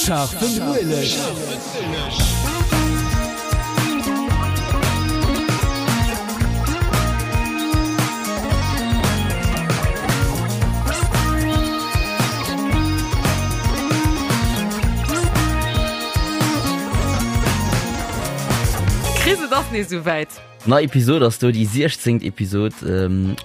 Scharfen Ueleg. Chris, et ass nees esouwäit. Nei Episod ass do, déi 16. Episod.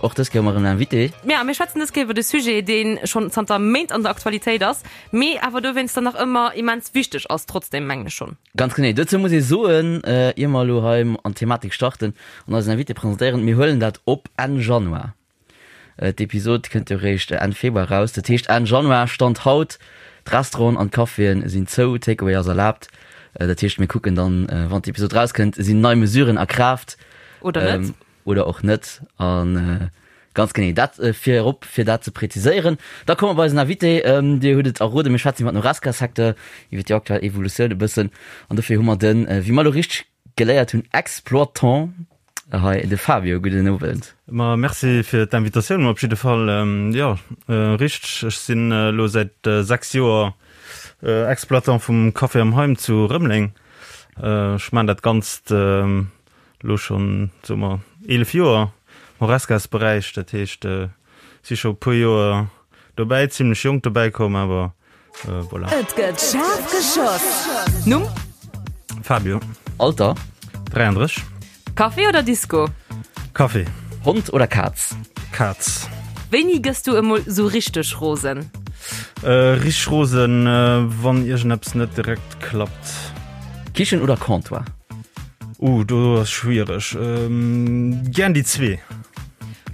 Och dës Kéier hu mer erëm en Invité. Ja, mir schwätzen dës Kéier iwwer e Sujet, dee schonn zanter Méint an der Aktualitéit ass, mee awer dowéinster nach ëmmer immens wichteg ass, trotzdem, mengen ech schonn. Ganz genee. Dozou muss ee soen, ier mer elo hei an d'Thematik starten an eisen Invité presentéieren, mir huelen dat op Enn Januar. D'Episod kënnt jo réischt Enn Februar raus. Dat heescht Enn Januar, Stand haut, d'Restauranten an d'Caféen sinn zou, Takeaway ass erlaabt. Dat heescht mir kucken dann, wann d'Episod rauskënnt, sinn nei Mesuren a Kraaft. Oder net. Oder och net. A ganz genee dat virop, fir dat ze präziséieren. Da komme mer bei eisen Invité. Dir hutt et erroden, mir schwätzen iwwer den Horesca-Secteur, iwwer déi aktuell Evolutioun e bëssen. An dofir hu mer den, wéi mer elo richteg geléiert hunn, Exploitant hei, de Fabio. Gudden Owend. Ma merci fir d'Invitatioun op jidde Fall. Jo, richteg, ech sinn elo säit 6 Joer Exploitant vum Café am Heim zu Rëmeleng. Ech maachen dat Ganzt elo schonn, soe mer, 11 Joer am Horescas-Beräich. Dat heescht, si scho e puer Joer dobäi, zimlech jonk dobäi komm, awer voilà. Et gëtt schaarf geschoss. Numm? Fabio. Alter? 33. Café oder Disco? Café. Hond oder Kaz? Kaz. Wéini gëss du emol sou richteg rosen? Richteg rosen, wann iergendeppes net direkt klappt. Kichen oder Comptoir? Uh, do ass schwiereg. Gären déi zwee.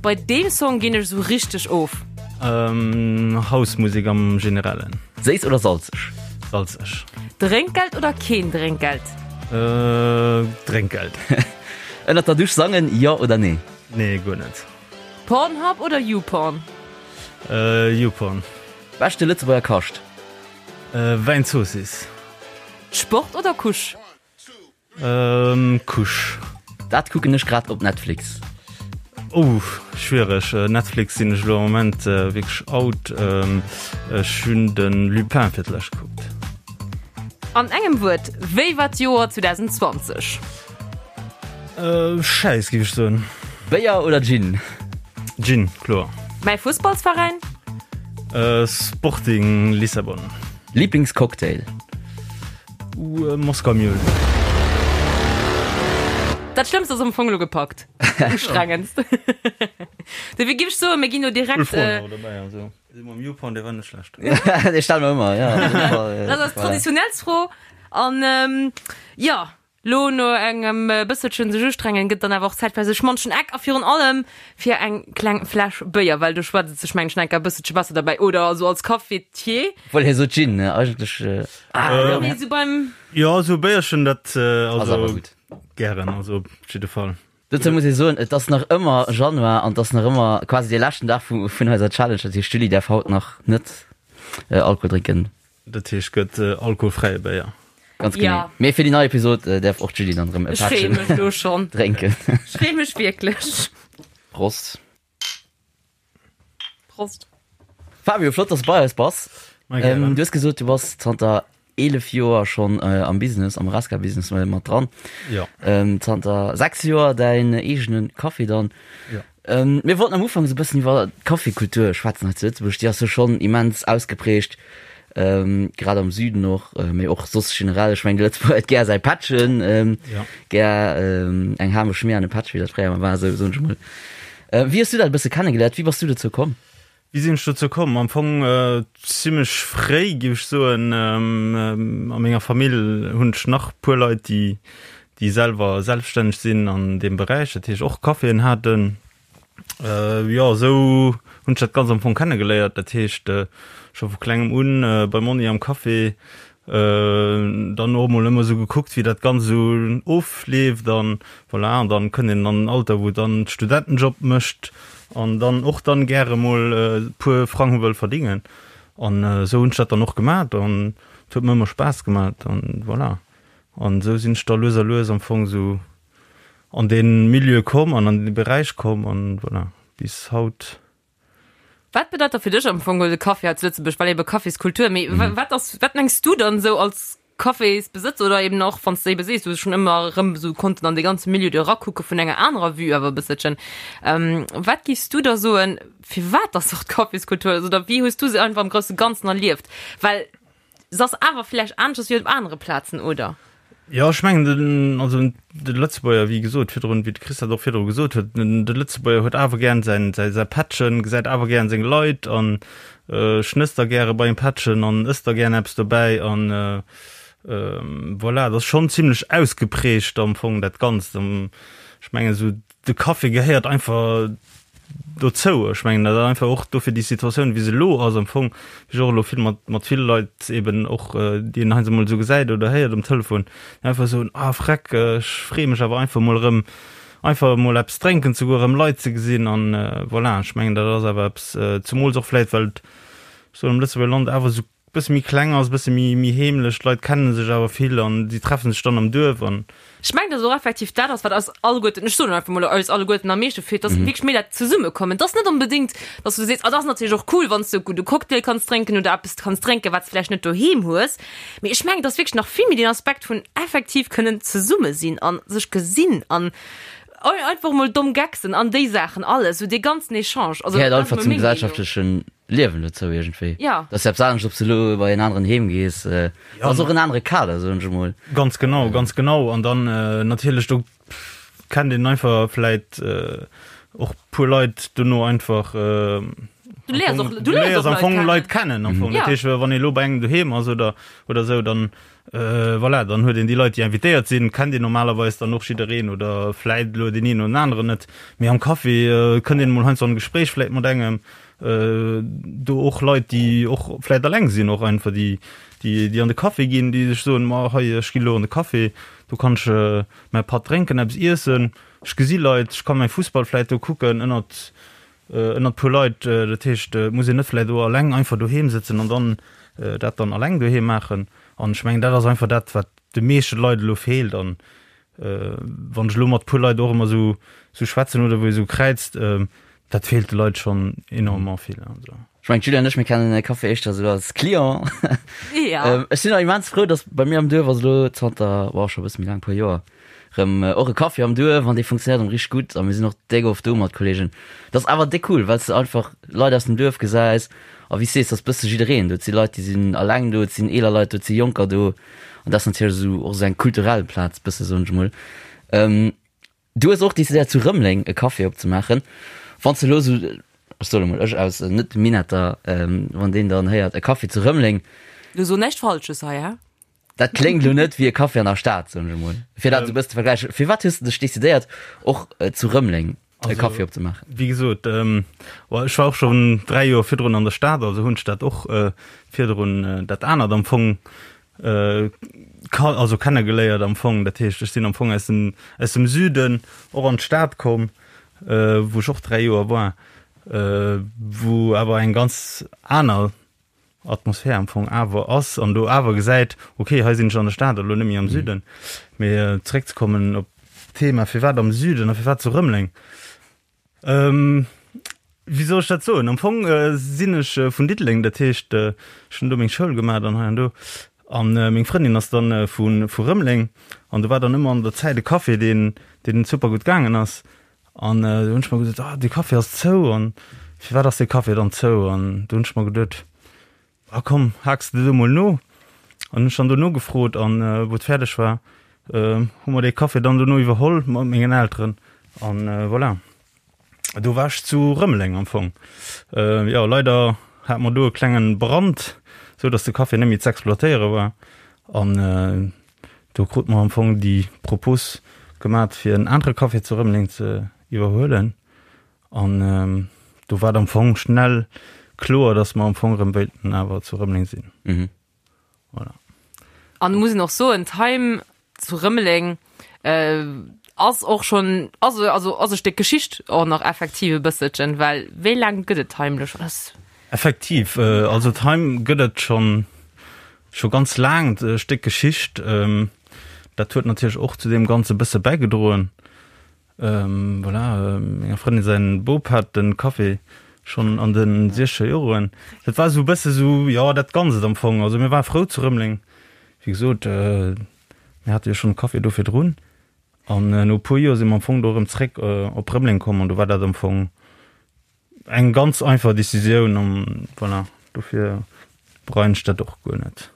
Bei deem Song ginn ech sou richteg of. House-Musek am Generellen. Séiss oder salzeg? Salzeg. Drénkgeld oder keen Drénkgeld? Drénkgeld. Ënnert der Dusch sangen, jo oder nee? Nee, guer net. Pornhub oder YouPorn? YouPorn. Beschte Lëtzebuerger Kascht? Wäinzoossiss. Sport oder Couche? Couche. Dat kucken ech grad op Netflix. Oh, schwiereg. Netflix sinn ech elo am Moment wierklech out. Ech hunn de Lupin fir d'lescht gekuckt. An engem Wuert, wéi war d'Joer 2020? Schäiss, géif ech soen. Béier oder Gin? Gin, kloer. Mäi Fussballsveräin? Sporting Lissabon. Liblingscocktail? Moskau Mule. Dat Schlëmmst ass am Fong elo gepackt. Ustrengendst. Dofir giff ech soen, mir ginn elo direkt. Cool Froen awer dobäi, also dee mam YouPorn, dee war net schlecht. Dee stelle mer ëmmer, jo. Dat ass d'traditionellst Fro. An jo, Lo no engem bësselchen sech ustrengen gëtt dann awer och Zäit fir sech manchen Eck a virun allem fir eng kleng Fläsch Béier, well do schwätzt et sech mengen ech enker e bësselche besser derbäi oder also als Cafetier. Obwuel hie sot Gin, ne? Eigentlech. Ah, nee, sou beim. Jo, sou e Béierchen, dat Ass awer also gutt. gären, also op jidde Fall. Dozou muss ee soen, et ass nach ëmmer Januar an et ass nach ëmmer quasi dee leschten Dag vu vun eiser Challenge. Dat heescht, d'Julie däerf haut nach net Alkohol drénken. Dat heescht gëtt alkoholfräie Béier. Ganz genee. Ja. Mee fir déi nei Episod däerf och d'Julie dann erëm e Ech freeë Pättchen mech lo schonn. drénken. Ech freeë mech wierklech. Prost. Prost. Fabio, flott, dass du bei eis bass. Ma gären. Du hues gesot, du bass zanter 11 Joer schonn am Business, am Horesca-Business mat dran. Ja. Zanter 6 Joer däin eegene Café dann. Ja. Mir wollten am Ufank esou e bëssen iwwer d'Cafékultur schwätzen hei zu Lëtzebuerg. Déi ass jo schonn immens ausgeprägt, grad am Süden och, mee och soss generell. Ech mengen, de Lëtzebuerger huet gär säi Pättchen, gär eng Hameschmier an e Pättchen, wéi dat fréier emol war, esou soen ech emol. Wéi hues du dat e bësse kennegeléiert? Wéi bass du dozou komm? Wéi sinn ech dozou komm? Am Fong zimmlech fréi, géif ech soen. A menger Famill hunn ech nach puer Leit, déi, déi selwer selbststänneg sinn an deem Beräich, dat heescht och Caféen haten. Jo, esou hunn ech dat Ganzt am Fong kennegeléiert. Dat heescht scho vu klengem un beim Monni am Café, Dann och emol ëmmer esou gekuckt, wéi dat Ganzt esou ofleeft an voilà. An dann kënnt een an en Alter, wou dann Studentenjob mécht an dann och dann gäre mol e puer Frang wëll verdingen. An esou hunn ech dat dann och gemat an et huet mer ëmmer Spaass gemat an voilà. An esou sinn ech da lues a lues am Fong esou an dee Milieu komm an an dee Beräich komm an voilà, bis haut. Wat bedeit da fir dech am Fong de Café hei zu Lëtzebuerg, well ebe Caféskultur, mee wat ass, wat mengs du dann esou als Cafésbesëtzer oder eben och wann s de ebe sees, du hues schonn ëmmer erëm esou konnten an dee ganze Milieu do erakucke vun enger anerer Vue awer e bësselchen, wat giffs du da soen, firwat dass och d'Caféskultur ass oder wéi hues du se einfach am grousse Ganzen erlieft? Well se ass awer vläicht aneschters wéi op anere Plazen, oder? Jo, ech mengen den, also de Lëtzebuerger, wéi gesot virdrun, wéi de Chris dat och virdru gesot huet, den de Lëtzebuerger huet awer gären säin, säi, säi Pättchen, gesäit awer gären seng Leit an schnësst da gäre bei engem Pättchen an ësst da gären eppes dobäi an voilà, dat ass schonn zimlech ausgeprägt am Fong dat Ganzt. Ech mengen esou de Café gehéiert einfach dozou. Ech mengen, dat ass einfach och dofir déi Situatioun, wéi se elo ass am Fong, wéi ech och elo vill mat, mat ville Leit eben och, déi een heiansdo emol esou gesäit oder héiert um Telefon, déi einfach soen, ah freck, ech freeë mech awer einfach emol erëm, einfach emol eppes drénken ze goen, erëm Leit ze gesinn an voilà. Ech mengen, dat ass awer eppes, zemools och vläicht, well et, ech soen, am Lëtzebuerger Land awer esou Bësse méi kleng ass, bësse méi méi heemlech, d'Leit kennen sech awer vill an si treffen sech dann am Duerf an. Ech mengen, dass et och effektiv dat ass, wat eis alleguerten, ech soen elo einfach mol eis alleguerten am meeschte feelt, dass wierklech méi dat Zesummekommen. Et ass net onbedéngt, dass du sees, ah, dat ass natierlech och cool, wann s de e gudde Cocktail kanns drénken oder eppes kanns drénken, wat s de vläicht net doheem hues. Mee ech mengen, et ass wierklech nach vill méi deen Aspekt vun effektiv kënnen zesumme sinn a sech gesinn an einfach mol domm Gaggsen an déi Saachen alles, esou dee ganzen Echange. Also, Gehéiert dat ass einfach emol zum meng Meenung. gesellschaftlechen Liewen dozou iergendwéi. Ja. Dat ass jo eppes anescht, ob s de elo bei en aneren heem gees. Dat ass och en anere Kader, soen ech emol. Ganz genau, ganz genau. An dann natierlech, do kennt een einfach vläit och puer Leit dono einfach. Du léiers och, du léiers am Fong Leit kennen am Fong. Dat heescht, wann ee elo bei engem doheem ass oder, oder esou, dann voilà, dann huet een déi Leit, déi invitéiert sinn, kennt een normalerweis dann och jiddereen oder vläit elo deen een oder den aneren net. Mee am Café kënnt een emol heiansdo an e Gespréich vläit mat engem. Do och Leit, déi och vläit alleng sinn, och einfach déi, déi, déi an de Café ginn, déi sech soen, ma hei, ech ginn elo an de Café, do kann ech mäi Patt drénken, eppes iessen, ech gesi Leit, ech ka mäi Fussball vläit do kucken ënnert, ënnert puer Leit. Dat heescht, et muss een net vläit och alleng einfach doheem sëtzen an dann dat dann alleng doheem maachen. An ech mengen, dat ass einfach dat, wat de meeschte Leit elo feelt. An wann ech elo mat puer Leit och ëmmer esou, esou schwätzen oder wou ee sou kräizt, dat feelt de Leit schonn enormément vill. Also. Ech mengen, d'Julia an ech, mir kennen de Café éischter esou als Client. Ja. Ech sinn och immens frou, dass bei mir am Duerf ass elo zanter, boah, scho e bësse méi laang, e puer Joer, rëm och e Café am Duerf an dee funktionéiert erëm richteg gutt a mir sinn och déck oft do mat Kollegen. Dat ass awer déck cool, well s de einfach Leit aus dem Duerf gesäis a wéi s sees, ass bësse jiddereen do. Et si Leit, déi sinn alleng do, et sinn eeler Leit do, et si Jonker do an dat ass natierlech esou och esou eng kulturell Plaz bësse soen ech mol. Du hues och decidéiert zu Rëmeleng e Café opzemaachen. Wann s de elo esou, ech soen emol, ech aus Net-Minetter, wann deen dann héiert e Café zu Rëmeleng. Du so näischt Falsches hei, hä? Dat kléngt elo net wéi e Café an der Stad, soen ech emol, fir dat esou e bëssen ze vergläichen. Firwat hues de dech decidéiert, och zu Rëmeleng e Café opzemaachen? Wéi gesot, ech war och schonn 3 Joer virdrun an der Stad, also hunn ech dat och virdrun dat anert am Fong also kennegeléiert am Fong. Dat heescht, ech sinn am Fong aus dem, aus dem Süden och an d'Stad komm, wou ech och 3 Joer war, wou awer eng ganz aner Atmosphär am Fong awer ass an do awer gesäit, okay, hei sinn ech an der Stad a lo net méi am Süden. Mee zeréckzekommen op d'Thema, firwat am Süden a firwat zu Rëmeleng? Wéi soll ech dat soen? Am Fong sinn ech vun Diddeleng, dat heescht, ech hunn do meng Schoul gemaach an hei an do. An meng Frëndin ass dann vu vu Rëmeleng an do war dann ëmmer an der Zäit e Café, deen deen super gutt gaangen ass. An do hunn ech mer gesot, ah dee Café ass zou an firwat ass dee Café dann zou? An do hunn ech mer geduet, ah komm, haaks de do mol no. An hunn ech dann do nogefrot an wou et fäerdeg war, hu mer dee Café dann dono iwwerholl mat mengen Elteren an voilà. Do war ech zu Rëmeleng am Fong. Jo, leider hate mer do e klengen Brand, sou datt de Café net méi z'exploitéiere war an Do krute mer am Fong déi Propos gemat fir en anere Café zu Rëmeleng ze iwwerhuelen an do war et am Fong schnell kloer, datt mer am Fong erëm wéilten awer zu Rëmeleng sinn. Mhm. Voilà. An muss een och soen, d'Heim zu Rëmeleng ass och schonn, also also ass e Stéck Geschicht och nach effektiv e bësselchen, well wéi laang gëtt et d'Heim elo schonn? Effektiv, also d'Heim gëtt et schonn scho ganz laang, e Stéck Geschicht. Dat huet natierlech och zu deem Ganze bësse bäigedroen. Voilà, menger Frëndin säin Bop hat de Café. Schonn an de siechzeger Joren. Dat war esou e bësse sou, jo, dat Ganzt am Fong. Also mir ware frou zu Rëmeleng. Wéi gesot, mir hate jo schonn e Café do virdrun. An no e puer Joer si mer am Fong do erëm zréck op Rëmeleng komm an do war dat am Fong eng ganz einfach Decisioun an voilà, dofir bereien ech dat och guer net.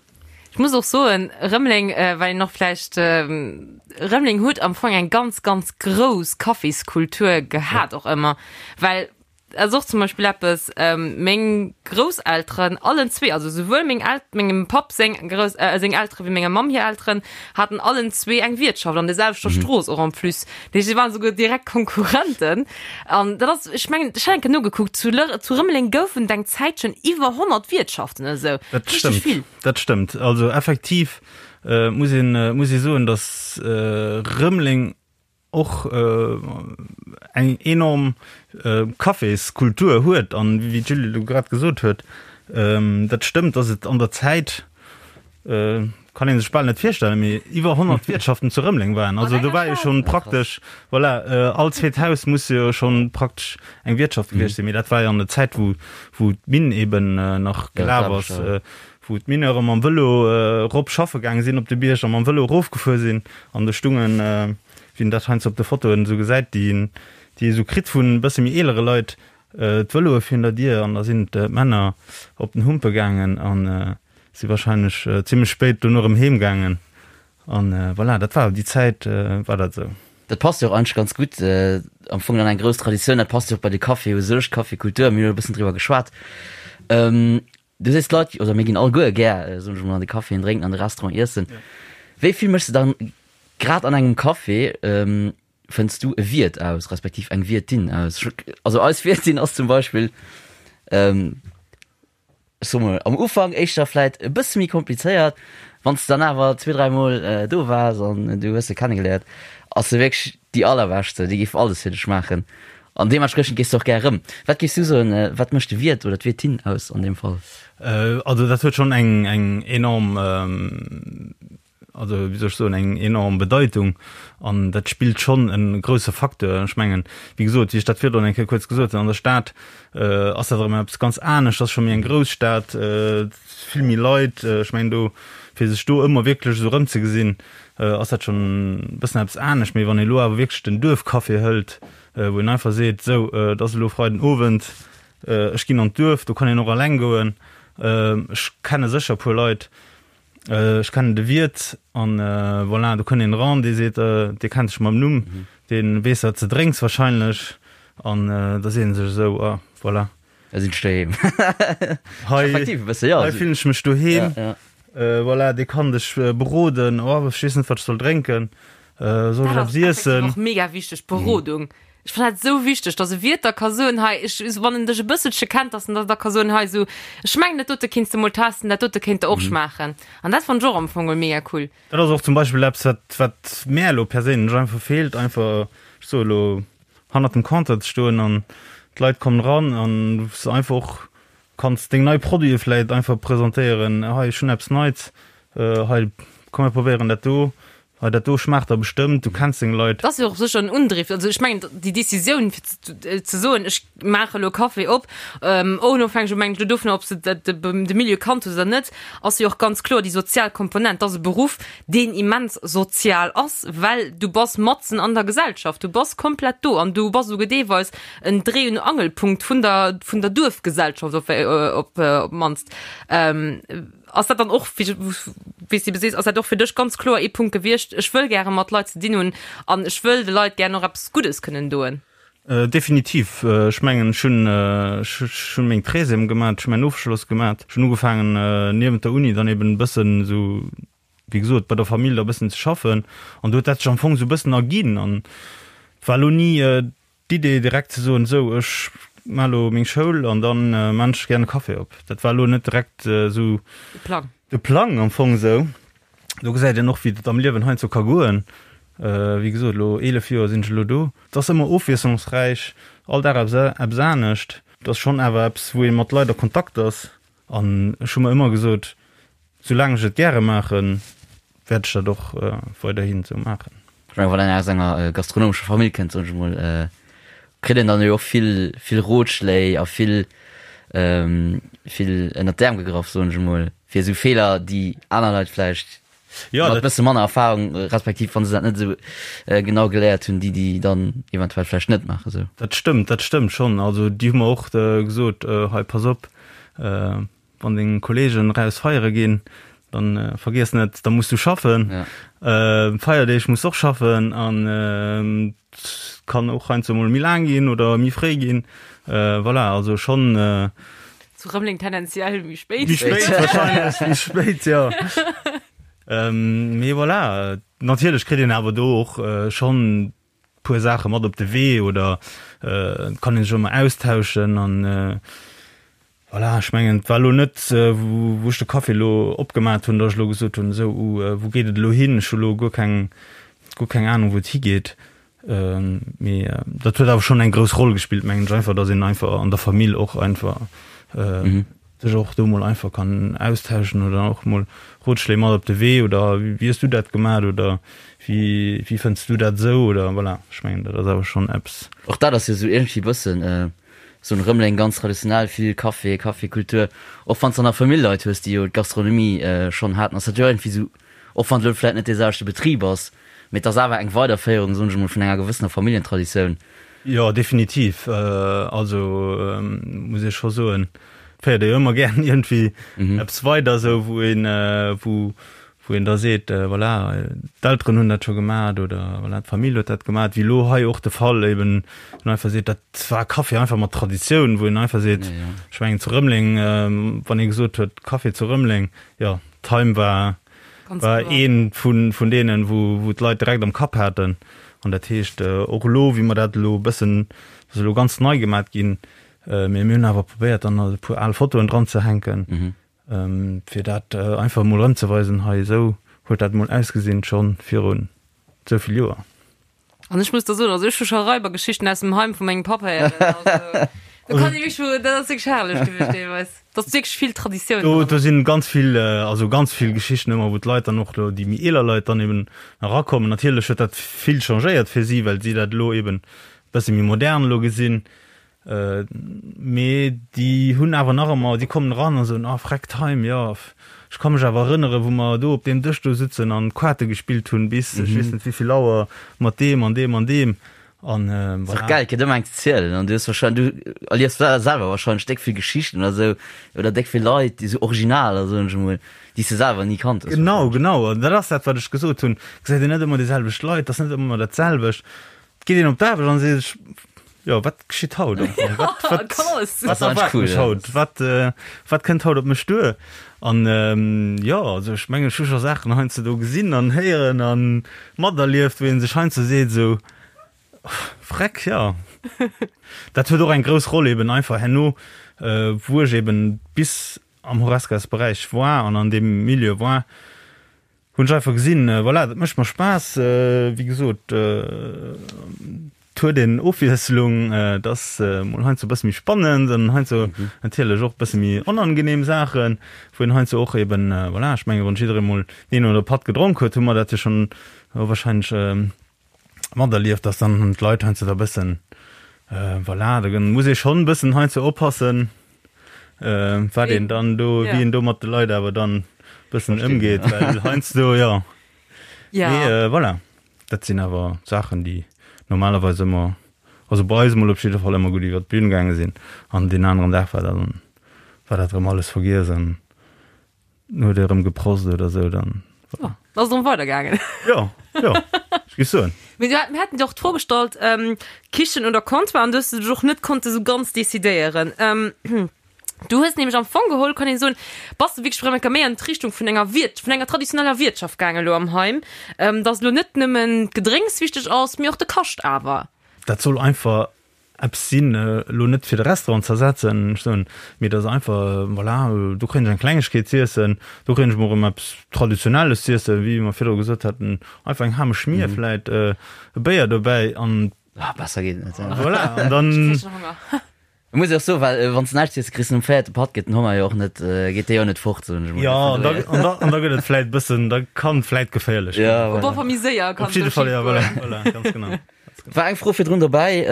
Ech muss och soen, Rëmeleng, well een och vläicht, Rëmeleng huet am Fong eng ganz, ganz grouss Kaffiskultur gehat och ëmmer, well Dat ass och zum Beispill eppes, meng Grousselteren, allen zwee, also souwuel meng El-, mengem Papp seng Grouss-, seng Eltere wéi menger Mamm hir Elteren, haten allen zwee eng Wiertschaft an der selwechter Strooss och en plus. Dat heescht, si waren souguer direkt Konkurrenten. An dat ass, ech mengen, ech hat eng Kéier nogekuckt, zu Lër-, zu Rëmeleng goufen et eng Zäitchen iwwer 100 Wiertschaften oder esou. Dat Richteg stëmmt, vill. dat stëmmt. Also effektiv muss een, muss ee soen, datt Rëmeleng och eng enorm Caféskultur huet an wéi d'Julie elo grad gesot huet, dat stëmmt, datt et an der Zäit, kann ee sech bal net virstellen, mee iwwer 100 Wiertschaften zu Rëmeleng waren. Also do war jo schonn praktesch, voilà, all zweet Haus muss jo schonn praktesch eng Wiertschaft gewiescht sinn. Mee dat war jo an der Zäit, wou wou d'Minn eben nach gelaf ass, wou d'Mineure mam Vëlo erop schaffe gaange sinn op de Bierg a mam Vëlo erofgefuer sinn an do stungen, wéi een dat heiansdo op de Fotoen esou gesäit, déi déi ee sou kritt vun e bësse méi eelere Leit, d'Vëloe virun der Dier an da sinn d'Männer op den Humpe gaangen a si wahrscheinlech zimmlech spéit dono erëm heem gaangen an voilà, dat war déi Zäit war dat esou. Dat passt jo och eigentlech ganz gutt, am Fong dann eng grouss Traditioun, dat passt jo och bei de Café u sech, d'Cafékultur, mir hunn e bëssen driwwer geschwat. Du sees d'Leit, oder mir ginn alleguer gär, soen ech emol, an de Caféen drénken, an de Restaurant iessen. Wéi vill méchs de dann grad an engem Café, fënns du e Wiert aus, respektiv eng Wiertin aus? Also eis Wiertin ass zum Beispill, ech soe mol, am Ufank éischter vläit e bësse méi komplizéiert, wann s de dann awer zwee, dräimol do waars an du hues se kennegeléiert, ass se wierklech déi allerbeschte, déi géif alles fir dech maachen. An deementspriechend gees de och gär erëm. Wat géifs du soen, wat mécht de Wiert oder d'Wiertin aus an deem Fall? Also dat huet schonn eng eng enorm, also wéi soll ech soen, eng enorm Bedeitung an dat spillt schonn e grousse Facteur. Ech mengen, wéi gesot, wéi ech dat virdrun eng Kéier kuerz gesot hunn, an der Stad ass dat erëm eppes ganz anescht, ass scho méi eng grouss Stad, vill méi Leit. Ech mengen do, fir sech do ëmmer wierklech esou erëmzegesinn, ass dat schonn e bëssen eppes anescht. Mee wann ee lo awer wierklech den Duerfcafé hëlt, wou een einfach seet, sou, et ass elo Freiden Owend, ech ginn an d'Duerf, do kann een och alleng goen, ech kenne sécher e puer Leit, ech kennen de Wiert an voilà, do kënnt een eran, dee seet, dee kennt dech mam Numm, dee weess wat s de drénks wahrscheinlech an da seet en sech esou, ah voilà. Da sinn ech doheem. Hei, Effektiv e bësse, jo. Hei fillen ech mech doheem. Ja, ja. Voilà, dee kann dech beroden, oh ech weess net wat ech soll drénken, soll ech Dat eppes ass effektiv iessen? och mega wichteg, d'Berodung. Ech fannen dat esou wichteg, dass e Wiert da ka soen, hei, ech, wann en dech e bësselche kennt, dass en da da ka soen, hei esou, ech mengen dat dote kinns de mol testen, dat dote kéint der och schmaachen. An dat fannen ech och am Fong mol mega cool. Dat ass och zum Beispill eppes wat wat mär elo perséinlech einfach feelt, einfach, ech soe elo, hannert dem Compteur ze stoen an d'Leit kommen eran an wou s de einfach och kanns deng nei Produite vläit einfach presentéieren, hei ech hunn eppes Neits, hei komm mir probéieren dat do, hei dat do schmaacht der bestëmmt, du kenns deng Leit. Dat ass jo och sécher en Undriff. Also ech mengen déi Decisioun fir ze soen, ech maache elo Café op, onofhängeg elo mengen ech elo dovunner ob s de de Milieu kannt hues oder net, ass jo och ganz kloer déi sozial Komponent. Dat ass e Beruff, deen immens sozial ass, well du bass matzen an der Gesellschaft, du bass komplett do an du bass esouguer deelweis en Dréi und Angelpunkt vun der, vun der Duerfgesellschaft op, op, op d'mannst. Ass dat dann och, wéi wéi s de sees, ass dat och fir dech ganz kloer ee Punkt gewiescht, ech wëll gäre mat Leit ze dinn hunn an ech wëll de Leit gären och eppes Guddes kënnen doen? Definitiv. Ech mengen, ech hunn, ech hunn meng Treizième gemat, ech hunn mäin Ofschloss gemat, ech hunn ugefaangen niewent der Uni dann eben e bëssen esou, wéi gesot, bei der Famill da e bëssen ze schaffen an do huet dat sech am Fong esou e bëssen erginn an et war elo ni d'Idee direkt ze soen, esou ech maa elo meng Schoul an dann maan ech gär e Café op. Dat war elo net direkt esou De Plang. De Plang am Fong esou. Do gesäit een och, wéi dat am Liewen heiansdo ka goen. Wéi gesot, elo 11 Joer sinn ech elo do. Et ass ëmmer ofwiesslungsräich, all Dag eppes eppes anescht. Et ass schonn awer eppes, wou ee mat Leit a Kontakt ass. An ech hu mer ëmmer gesot, soulaang ech et gäre maachen, wäert ech dat och weiderhin esou maachen. Ech mengen, wann een aus enger gastronomescher Famill kënnt, soen ech emol. Kritt een dann jo och vill, vill Rotschléi a vill, vill ënnert d'Äerm gegraff, soen ech emol, fir esou Feeler, déi aner Leit vläicht Ja, mat dat, bësse manner Erfahrung, respektiv wann se dat net esou genau geléiert hunn, déi déi dann eventuell vläicht net maachen esou. dat stëmmt, dat stëmmt schonn. Also déi hu mer och gesot, hei pass op, Wann deng Kollegen raus feiere ginn, dann vergiess net, da muss du schaffen. Ja. Feierdeeg muss och schaffen an kann och heiansdo mol méi laang ginn oder méi fréi ginn. Voilà, also schonn. Zu Rëmeleng tendenziell méi spéit. Méi spéit wahrscheinlech, méi spéit, jo. Mee voilà, natierlech kritt een awer do och schonn puer Saache mat op de Wee oder et kann een sech och emmer austauschen an voilà, ech mengen et war elo net wou ech de Café elo opgemat hunn, datt ech elo gesot hunn, esou uh wou geet et elo hin, ech hu elo guer keng guer keng Anung wou et higeet. Mee dat huet awer schonn eng grouss Roll gespillt mengen ech einfach, datt een einfach an der Famill och einfach sech och do mol einfach kann austauschen oder och mol Rotschléi mat op de Wee oder wéi hues du dat gemat oder wéi wéi fënns du dat esou oder voilà, ech mengen dat ass awer schonn eppes. Och dat ass jo esou iergendwéi bëssen esou en Rëmeleng ganz traditionell, vill Café, Cafékultur, och wann s de an der Famill Leit hues déi jo d'Gastronomie schonn haten, ass dat jo iergendwéi esou, och wann et elo vläit net dee selwechte Betrib ass, mee et ass awer eng Weiderféierung, soen ech emol, vun enger gewëssener Familljentraditioun. Jo, definitiv. Also muss ee scho soen, féiert ee jo ëmmer gären iergendwéi eppes weider, esou wou een, wou wou een da seet, voilà, d'Elteren hunn dat scho gemat oder voilà, d'Famill huet dat gemat, wéi elo hei och de Fall eben, wou een einfach seet, dat war Café einfach mat Traditioun, wou een einfach seet, ech mengen zu Rëmeleng, wann ee gesot huet Café zu Rëmeleng, jo, d'Heim war war ee vun vun deenen, wou wou d'Leit direkt am Kapp haten. An dat heescht och elo, wéi mer dat elo e bëssen, dat ass elo ganz nei gemat ginn, mee mir hunn awer probéiert, dann e puer al Fotoen dran ze hänken, fir dat einfach emol erëmzeweisen, hei esou huet dat emol ausgesinn, scho virun esou vill Joer. An ech muss der soen, also ech hu scho Raibergeschichten aus dem Heim vu mengem Papp héieren. Also, do kann ee wierklech, dat ass wierklech herrlech gewiescht deelweis. Dat ass wierklech vill Traditioun Do, do sinn ganz vill, also ganz vill Geschichten ëmmer, wou d'Leit dann och do, déi méi eeler Leit dann eben erakommen. Natierlech huet dat vill changéiert fir si, well si dat elo eben e bësse méi modern elo gesinn. Mee déi hunn awer nach ëmmer, déi kommen eran a soen, ah Freck Time, jo, ech ka mech awer erënneren, wou mer do op deem Dësch do sutzen an Kaarte gespillt hunn bis ech weess net wéi vill Auer mat deem an deem an deem. An voilà. Ass och gäil, kritt ëmmer eng ze zielen an du hues wahrscheinlech, du erliefs selwer wahrscheinlech déck vill Geschichten oder sou oder déck vill Leit, déi sou Originaler, soen ech emol, déi s de selwer ni kannt hues. Genau, genau. An dat ass dat, wat ech gesot hunn, gesäit een net ëmmer déi selwecht Leit, ass net ëmmer dat selwecht. Et geet een op d'Aarbecht an seet sech, Jo, wat geschitt haut am Fong? Wat, wat, wat erwaart mech haut? Wat, äh, wat kënnt haut op mech duer? An ähm, jo, also ech mengen, ech hu scho Saachen heiansdo do gesinn an héieren an materlieft, wou ee sech heiansdo seet esou, Freck, jo. Dat huet och eng grouss Roll eben einfach herno, äh, wou ech eben bis am Horescas-Beräich war an an deem Milieu war, Hunn ech einfach gesinn, voilà, dat mécht mer Spaass. Wéi gesot, et huet een Ofwiesslung, et ass mol heiansdo e bësse méi spannend an heiansdo natierlech och e bësse méi onangenehm Saachen, wou een heiansdo och eben, voilà, ech menge wann jidderee mol deen oder Patt gedronk huet, hu mer dat jo schonn warscheinlech materlieft, dass dann d'Leit heiansdo da bëssen, voilà, da muss ee schonn e bëssen heiansdo oppassen, wat een dann do, wéi een do mat de Leit awer dann bëssen ëmgeet, well heiansdo, jo. Mee voilà, dat sinn awer Saachen, déi normalerweis ëmmer, also bei eis emol op jidde Fall ëmmer gutt iwwer d'Bün gaange sinn an deen aneren Dag war dann, war dat erëm alles vergiess an Huet e rëm geprost oder sou, dann. Oh, da ass et erëm weidergaangen. Jo, jo, ech géif soen. Mee du hat, mir haten dir och d'Fro gestallt, ähm, Kichen oder Comptoir, an du hues dech och net konnte sou ganz decidéieren. Ähm, du hues nämlech am Fong geholl, kann een soen, bass de wierklech erëm eng Kéier méi an d'Richtung vun enger Wirt, vun enger traditioneller Wiertschaft gaangen elo am Heim, ähm, dass elo net nëmmen d'Gedrénks wichteg ass, mee och de Kascht awer. Dat soll einfach Eppes sinn, elo net fir de Restaurant ze ersetzen, ech soen, mee et ass einfach, voilà, do kréien ech eng Klengegkeet z'iessen, do kréien ech mol erëm eppes Traditionelles z'iessen, wéi mer virdru gesot haten, einfach eng Ham Schmier vläit, e Béier dobäi an. Ah, besser geet et net. Voilà, an dann. Ech kréich schon Honger. Et muss ee och soen, well wann s de näischt iess, kriss de nom véierte Patt gëtt den Honger jo och net, geet dee jo net fort, soen ech emol. Jo, an da, an da, an da gëtt et vläit bëssen, da kann et vläit geféierlech ginn. Ja, voilà. Op alle Fall méi séier kann et do schief Op jidde Fall, ja, goen. voilà, voilà, ganz genau. War eng Fro virdrun dobäi,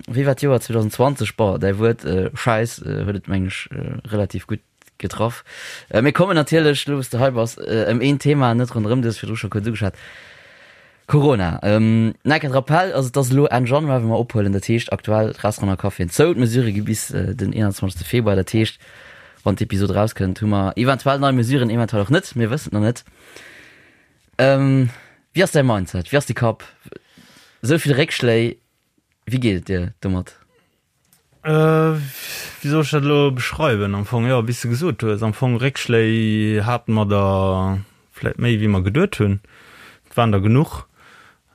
wéi war d'Joer 2020? Bon, däi Wuert Schäiss huet et, mengen ech, relativ gutt getraff. Mir kommen natierlech, elo wou s de hei bass, ëm een Thema net ronderëm, du hues virdru scho kuerz ugeschwat, Corona. Nach e Rappell, also et ass elo Enn Januar, wou mer ophuelen, dat heescht aktuell d'Restauranten a Caféen zou, d'Mesurë gi bis den 21. Februar, dat heescht, wann d'Episod erauskënnt, hu mer eventuell nei Mesuren, eventuell och net, mir wëssen et nach net. Wéi ass däi Mindset, wéi ass de Kapp? Esou vill Réckschléi, wéi geet et dir domat? Wéi soll ech dat elo beschreiwen? Am Fong, jo, wéi s de gesot hues, am Fong Réckschléi hate mer der vläit méi, wéi mer geduet hunn. Et waren der genuch.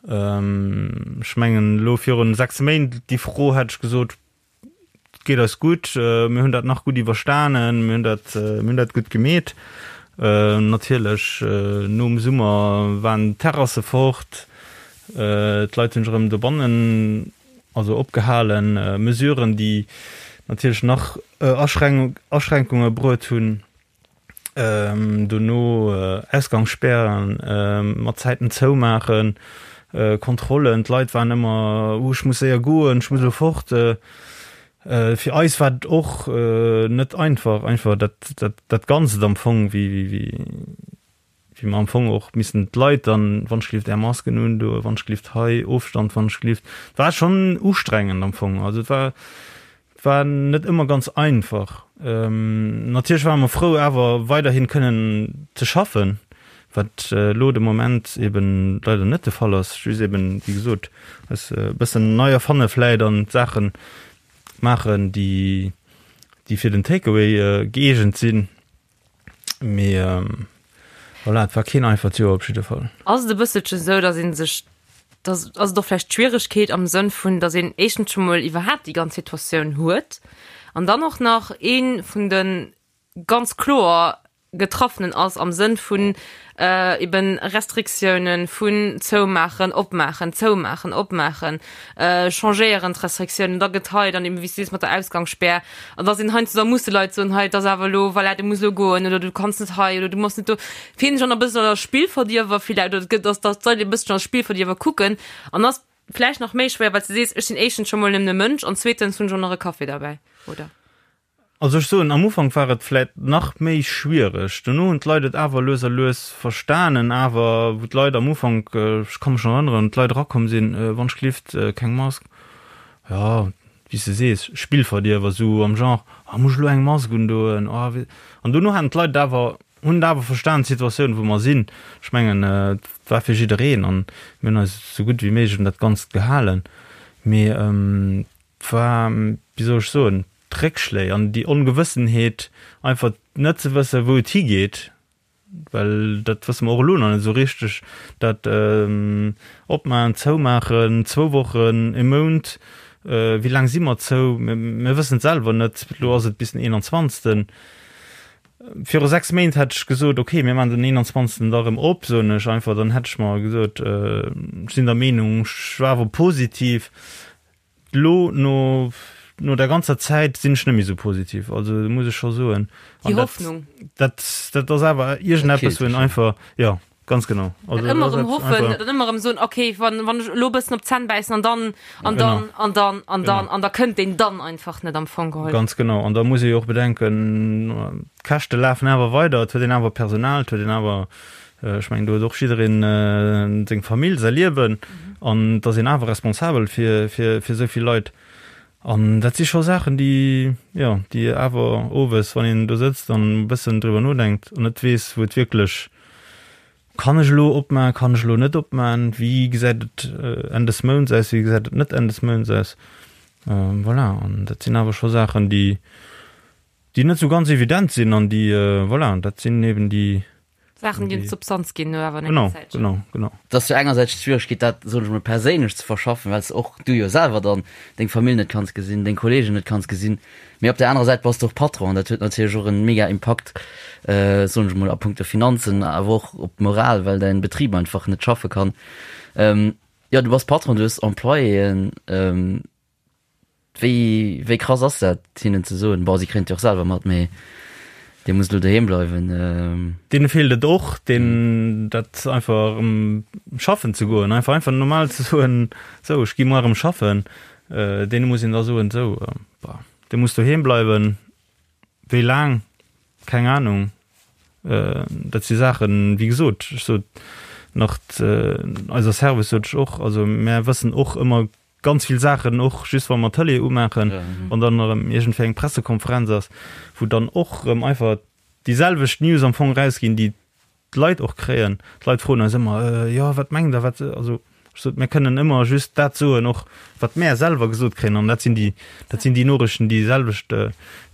Ech mengen, elo virun 6 Méint, déi Fro hätt ech gesot, et geet eis gutt, mir hunn dat nach gutt iwwerstanen, mir hunn dat, mir hunn dat gutt gemeet. Natierlech, nom Summer waren d'Terrasse fort, d'Leit hunn sech erëm dobannen Also opgehalen Mesuren, déi natierlech nach Aschränkunge bruet hunn, dono Ausgangsspären, mat Zäiten zoumaachen, Kontrollen, d'Leit waren ëmmer, oh ech muss séier goen, ech muss elo fort. Fir eis war et och net einfach, einfach dat Ganzt am Fong, wéi wéi mer am Fong och missen d'Leit dann, wann ech gelift Är Masken undoen, wann ech gelift hei Ofstand, wann ech gelift, et war schonn ustrengend am Fong. Also et war, et war net ëmmer ganz einfach. Natierlech ware mer frou awer weiderhin kënnen ze schaffen, wat elo de Moment eben leider net de Fall ass, just eben, wéi gesot, eis e bëssen nei erfanne vläit an d'Saache maachen, déi, déi fir den Takeaway gëeegent sinn. Mee voilà, et war keen einfacht Joer op jidde Fall. Ass et e bësselchen esou, datt ee sech, datt, ass et och vläicht d'Schwieregkeet am Sënn vun, datt een éischtens scho mol iwwerhaapt déi ganz Situatioun huet an dann och nach ee vun de ganz kloer Getraffenen ass am Sënn vun eben Restriktiounen, vun zoumaachen, opmaachen, zoumaachen, opmaachen, changéieren d'Restriktiounen, da gëtt hei dann eben, wéi s du sees, mat der Ausgangsspär, an da sinn heiansdo, da musse Leit soen, hei et ass awer elo, voilà, du muss elo goen oder du kanns net hei oder du muss net do. Fillen sech och nach e bëssen als Spillverdierwer villäicht oder et gëtt, dass dass d'Leit e bësschen als Spillverdierwer kucken an ass vläicht nach méi schwéier, well s du sees, ech sinn éischtens scho mol nëmmen e Mënsch an zweetens hunn ech och nach e Café derbäi, oder? Also ech soen, am Ufank war et vläit nach méi schwiereg. Dono hunn d'Leit et awer lues a lues verstanen. Awer wou d'Leit am Ufank, ech ka mech nach erënneren, d'Leit erakomm sinn, wann ech gelift, keng Mask, jo, wéi s de sees, Spillverdierwer, esou am Genre, ah muss ech elo eng Mask undoen, ah wéi. An dono haten d'Leit et awer, hunn et awer verstan, d'Situatioun wou mer sinn. Ech mengen, et war fir jiddereen an mir hunn eis esou gutt wéi méiglech un dat Ganzt gehalen. Mee et war, wéi soll ech soen, d'Réckschléi an déi Ongewëssenheet, einfach net ze wëssen, wou et higeet, well dat wësse mer och elo nach net esou richteg, dat Opmaachen, Zoumaachen, zwou Wochen, e Mount, wéi laang si mer zou, mir wëssen et selwer net. Elo ass et bis den 21. Viru 6 Méint hätt ech gesot, okay, mir maachen den 21. da erëm op, soen ech einfach, dann hätt ech mer gesot, ech sinn der Meenung, ech war awer positiv. Lo no no der ganzer Zäit sinn ech net méi sou positiv, also muss ech scho soen. Déi Hoffnung. Dat dat ass awer iergendeppes, wou een einfach, jo, ganz genau. Also dat ëmmer erëm hoffen, dat ëmmer erëm soen, okay, wann wann ech elo e bëssen op d'Zänn bäissen an dann an dann an dann an dann an da kënnt deen dann einfach net am Fong geholl. Ganz genau. An da muss ee jo och bedenken, d'Käschte lafen awer weider, et huet een awer Personal, et huet een awer Ech mengen, do huet och jiddereen seng Famill, säi Liewen an et ass een awer responsabel fir, fir, fir esou vill Leit. An dat si scho Saachen, déi, jo, déi awer owes, wann een do sëtzt an e bëssen driwwer nodenkt an net weess, wou et wierklech, Kann ech elo opmaen, kann ech elo net opmaen, wéi gesäit et Enn des Mounts aus, wéi gesäit et net Enn des Mounts aus? Voilà, an dat sinn awer scho Saachen, déi, déi net esou ganz evident sinn an déi, voilà, dat sinn eben déi, Saachen, déi Substanz ginn no awer enger Zäitchen. Genau, genau. Et ass jo engersäits d'Schwieregkeet, dat, soen ech mol, perséinlech ze verschaffen, well s de och, du jo selwer dann deng Famill net kanns gesinn, deng Kollegen net kanns gesinn, mee op där anerer Säit bass de och Patron an dat huet natierlech och en mega Impakt, soen ech mol, a punkto Finanzen, awer och op d'Moral, well däin Betrib einfach net schaffe kann. Jo, du bass Patron, du hues Employéen. Wéi, wéi krass ass dat, hinnen ze soen, bon, si kréien et jo och selwer mat, mee. Dee muss elo doheem bleiwen. Deene feelt et och, deen dat einfach erëm schaffen ze goen, einfach einfach normal ze soen, sou ech gi muar erëm schaffen. Deene muss een da soen, sou bah, dee muss doheem bleiwen. Wéi laang? Keng Anung. Dat si Saachen, wéi gesot, ech sot nach eiser Service sot ech och, also mär wëssen och ëmmer Ganz vill Saachen, och just wa mer d'Tëlee umaachen, wann dann erëm iergendwéi eng Pressekonferenz ass, wou dann och erëm einfach déi selwecht News am Fong erausginn, déi d'Leit och kréien. D'Leit froen eis ëmmer, Jo, wat mengt Der, wat. Also ech sot, mir kënnen ëmmer just dat soen och, wat mär selwer gesot kréien. An dat sinn déi, dat sinn déi Noriichten, déi selwecht,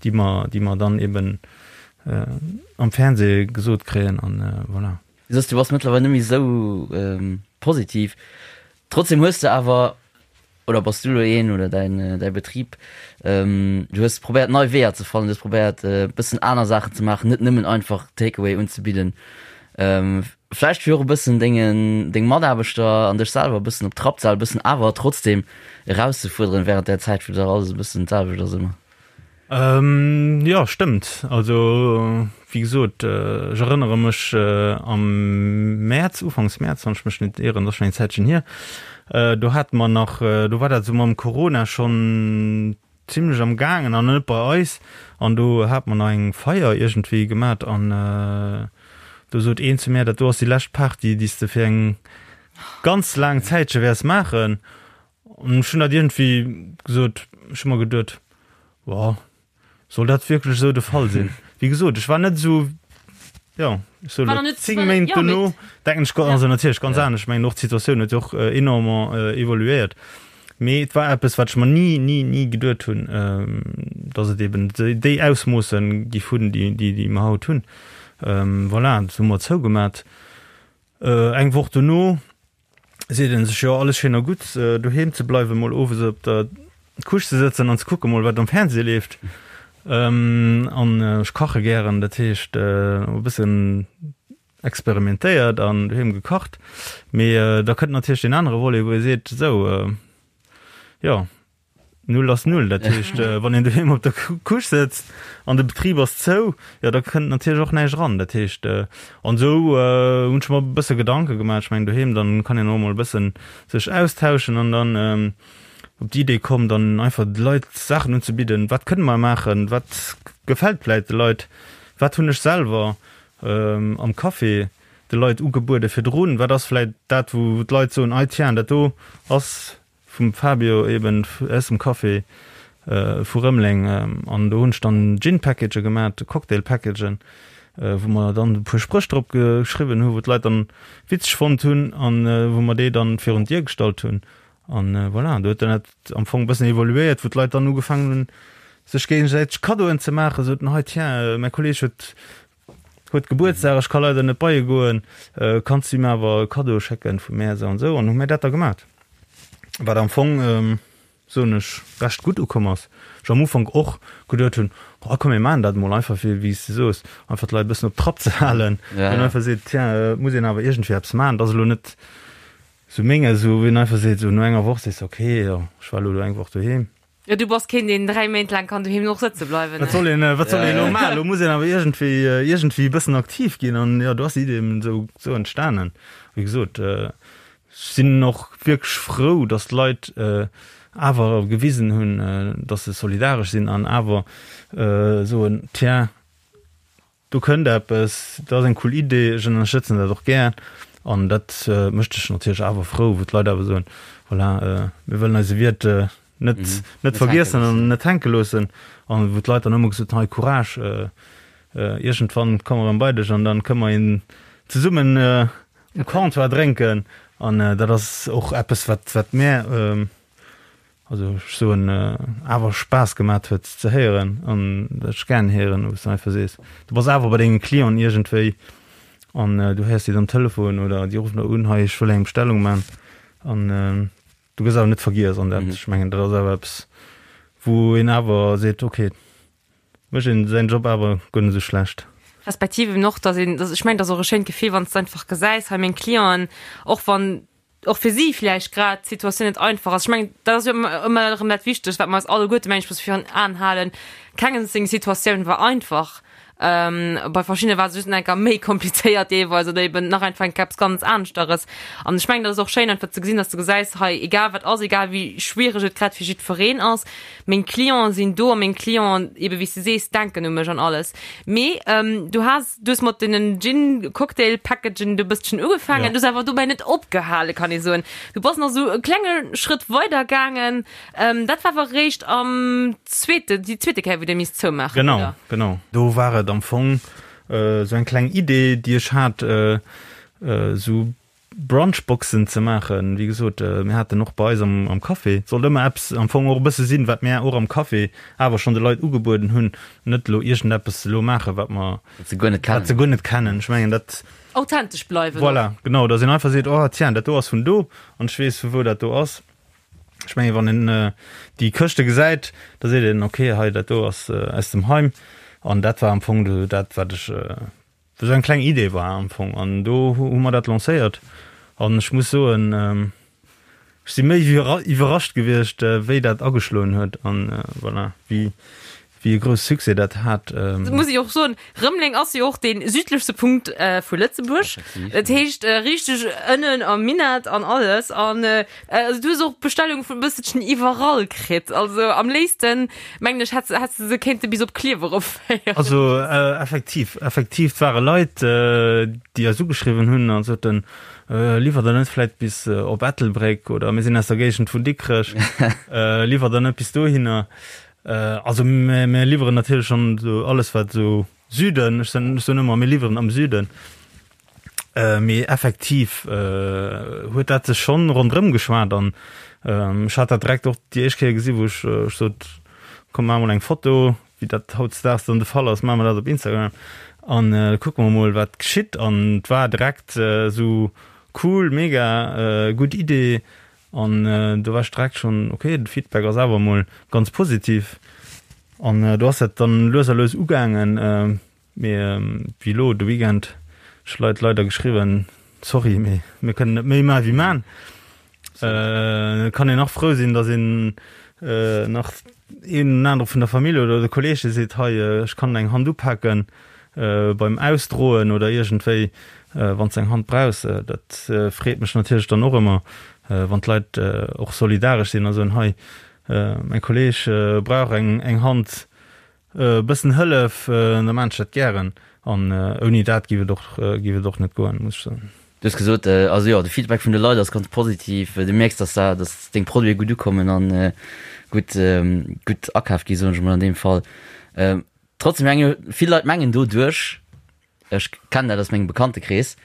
déi mer, déi mer dann eben am Fernseh gesot kréien. An voilà. Du soss, du bass mëttlerweil net méi esou positiv. Trotzdem hues de awer, oder bass du elo een oder däin, däi Betrib, du hues probéiert nei Weeër ze fannen, du hues probéiert e bëssen aner Saachen ze maachen, net nëmmen einfach Takeaway unzebidden. Vläicht fir och e bëssen dengen, deng Mataarbechter an dech selwer e bëssen op Trapp ze halen, e bëssen awer trotzdem erauszefuerderen während där Zäit, wou dach alles e bëssen d'selwecht ass ëmmer. Jo, stëmmt. Also, wéi gesot, ech erënnere mech am Mäerz, ufanks Mäerz, wann ech mech net ieren, dat ass schonn eng Zäitchen hier, do hate mer nach, do war dat esou mam Corona schonn zimlech am gaangen an net bei eis, an do hate mer nach eng Feier iergendwéi gemat an do sot een zu mär, dat do ass déi lescht Party, déi s de fir eng ganz laang Zäitche wäers maachen. An ech hunn dat iergendwéi gesot, ech hu mer geduet, Boah, soll dat wierklech esou de Fall sinn? Wéi gesot, ech war net esou, jo, ech soe lo 10 Méint dono denken ech, also natierlech ganz anescht, ech mengen och d'Situatioun huet jo och enormement evoluéiert, mee et war eppes, wat ech mer ni, ni, ni geduet hunn, datt et eben déi Ausmoosse giff hunn, déi, déi mer haut hunn. Voilà, dat hu mer zougemat. Eng Woch dono seet een sech, jo alles schéin a gutt, doheem ze bleiwen, mol owes op der Couche ze sëtzen an ze kucke mol wat am Fernseh leeft. An ech kache gären, dat heescht e bëssen experimentéiert an doheem gekacht. Mee da kënnt natierlech deen anere Volet, wou ee seet, esou jo, Null ass Null. Dat heescht, wann een doheem op der Couche sëtzt an de Betrib ass zou, jo da kënnt natierlech och näischt eran. Dat heescht, an esou hunn ech mer e bësse Gedanke gemaach. Ech mengen doheem, dann kann een och emol e bëssen sech austauschen an dann op déi Idee komm, dann einfach de Leit Saachen unzebidden. Wat kënne mer maachen? Wat gefält vläit de Leit? Wat hunn ech selwer am Café de Leit ugebuede virdrun? Wat ass vläit dat, wou d'Leit soen, Ei tiens, dat do ass Vum Fabio eben aus dem Café vu Rëmeleng an do hunn ech dann Gin Package gemat, Cocktail Packagen, wou mer dann e puer Spréch drop geschriwwen hu wou d'Leit dann witzeg fonnt hunn an wou mer déi dann virun d'Dier gestallt hunn an voilà, do huet dann dat am Fong e bëssen evoluéiert, wou d'Leit dann ugefaangen hunn sech géigesäiteg Kaddoen ze maachen, soten hei tiens, mäi Kolleeg huet Huet Gebuertsdag, ech ka leider net bei e goen, kanns du him awer e Kaddo schécken vu mär esou an esou. An hu mär dat da gemat, wat am Fong, soen ech, recht gutt ukomm ass. Ech am Ufank och geduet hunn, oh komm mir maachen dat emol einfach fir, wéi s de soos, einfach d'Leit e bëssen op Trapp ze halen, wou een einfach seet, tiens, et muss een awer iergendwéi eppes maachen, et ass elo net esou menges, wou een einfach seet, esou no enger Woch sees de, okay, jo, ech war elo do eng Woch doheem. Jo, du bass keen, deen 3 Méint laang kann doheem och sëtze bleiwen. Wat soll een, wat soll een elo maachen? Elo muss een awer iergendwéi, iergendwéi e bëssen aktiv ginn an jo, do ass déi Idee eben esou, esou entstanen. Wéi gesot, ech sinn och wierklech frou, datt d'Leit awer gewisen hunn, datt se solidaresch sinn an awer soen, tiens, Do kënnt eppes, dat ass eng cool Idee, ech ënnerstëtzen dat och gär. An dat mécht dech natierlech awer frou, wou d'Leit awer soen, voilà, mir wëllen eise Wiert net, net vergiessen an net hänke loossen. An wou d'Leit dann ëmmer gesot hunn, hei Courage, iergendwann komme mer erëm bei dech an dann kënne mer een zesummen um Comptoir drénken. An dat ass och eppes, wat, wat mär, Also ech soen awer Spaass gemat huet ze héieren an dat ech gären héieren, wou s de einfach sees, du bass awer bei denge Clienten iergendwéi an du héiers déi am Telefon oder déi ruffen der un, hei ech wëll eng Bestellung man an du gëss awer net vergiess an dat, ech mengen dat ass awer eppes wou een awer seet, okay, mécht een säin Job awer guer net esou schlecht. Respektiv eben och, datt een, ech mengen dat ass och e schéint Gefill, wann s de einfach gesäis, hei meng Clienten, och wann och fir si vläicht grad d'Situatioun net einfach ass. Ech mengen, dat ass jo ëmmer erëm dat Wichtegst, wat mer eis alleguerte, mengen ech, musse virun Aen halen, Kengem seng Situatioun war einfach. Bei verschiddene war et just enker méi komplizéiert deelweis oder eben nach einfach enker eppes ganz aneschteres. An ech mengen, dat ass och schéin einfach ze gesinn, dass du gesäis, hei egal wat ass, egal wéi schwiereg et grad fir jiddwereen ass, meng Clienten sinn do a meng Clienten, eben wéi s du sees, denken u mech an alles. Mee du has, du hues mat deenen Gin-Cocktail-Packagen do e bësschen ugefaangen, du hues awer dobäi net opgehale, kann ee soen. Du bass nach esou e klenge Schrëtt weider gaangen. Ähm, dat war awer réischt am zweete, déi zweete Kéier, wou Dir misst zoumaachen, Genau, oder? genau. Do war et am Fong esou eng kleng Idee, déi ech hat, esou Brunchboxen ze maachen. Wéi gesot, mir haten och bei eis am, am Café, et sollt ëmmer eppes am Fong och e bësse sinn, wat mir och am Café awer schonn de Leit ugebueden hunn, net elo iergendeppes elo maachen, wat mer, Wat se guer net wat se kennen. guer net kennen. Ech mengen, dat. Authentesch bleiwen och. Voilà, genau, dass een einfach seet, oh tiens, dat do ass vun do an ech weess, vu wou dat do ass. Ech mengen, wann een déi Këschte gesäit, da seet een, okay, hei dat do ass aus dem Heim. An dat war am Fong do dat, wat ech, esou eng kleng Idee war am Fong. An do hu mer dat lancéiert. An ech muss soen, ech si méi wéi iwwerrascht gewiescht, wéi dat ageschloen huet an voilà, wéi wéi e grousse Succès dat hat. Muss ech och soen, Rëmeleng ass jo och dee südlechste Punkt vu Lëtzebuerg. Dat heescht richteg ënnen am Minett an alles. An also du hues och Bestellunge vun e bësselchen iwwerall kritt. Also am léifsten, mengen ech, hätt häss de se kéinte bis op Klierf erofféieren. Also effektiv, effektiv, et ware Leit, déi eis ugeschriwwen hunn a soten, Liwwert der net vläit bis op Ettelbréck oder mir sinn aus der Géigend vun Dikrech, liwwert der net bis dohinner? Also mir liwweren natierlech schonn esou alles wat esou Süden, ech soen ech soen ëmmer mir liwweren am Süden, mee effektiv huet dat sech schonn ronderëm geschwat an ech hat dat direkt och déi éischt Kéier gesi wou ech ech sot, komm maach mol eng Foto, wéi dat hautdesdaags dann de Fall ass, maache mer dat op Instagram an kucke mer mol wat geschitt an et war direkt esou cool, mega gutt Idee An do war ech direkt schonn, ok, de Feedback ass awer emol ganz positiv. An do ass dat dann lues a lues ugaangen. Mee wéi elo de Weekend, ech Leit leider geschriwwen, sorry, mee mir kënnen net méi maachen wéi maan. Et kann een nach frou sinn, datt een nach een oder anere vun der Famill oder de Kolleege seet, hei, ech kann eng Hand upaken beim Ausdroen oder iergendwéi, wann s de eng Hand brauchs. Dat freet mech natierlech dann och ëmmer, wann d'Leit och solidaresch sinn a soen, hei, mäi Kolleeg brauch eng Hand, e bëssen Hëllef, da maan ech dat gären. An ouni dat géif et och, géif et och net goen, muss ech soen. Du hues gesot, also jo, de Feedback vun de Leit ass ganz positiv. Du mierks, dass da, dass deng Produite gutt ukommen an gutt, gutt akaf gi soen ech emol an deem Fall. Trotzdem menge vill Leit mengen doduerch, ech kennen dat aus mengem Bekanntekrees,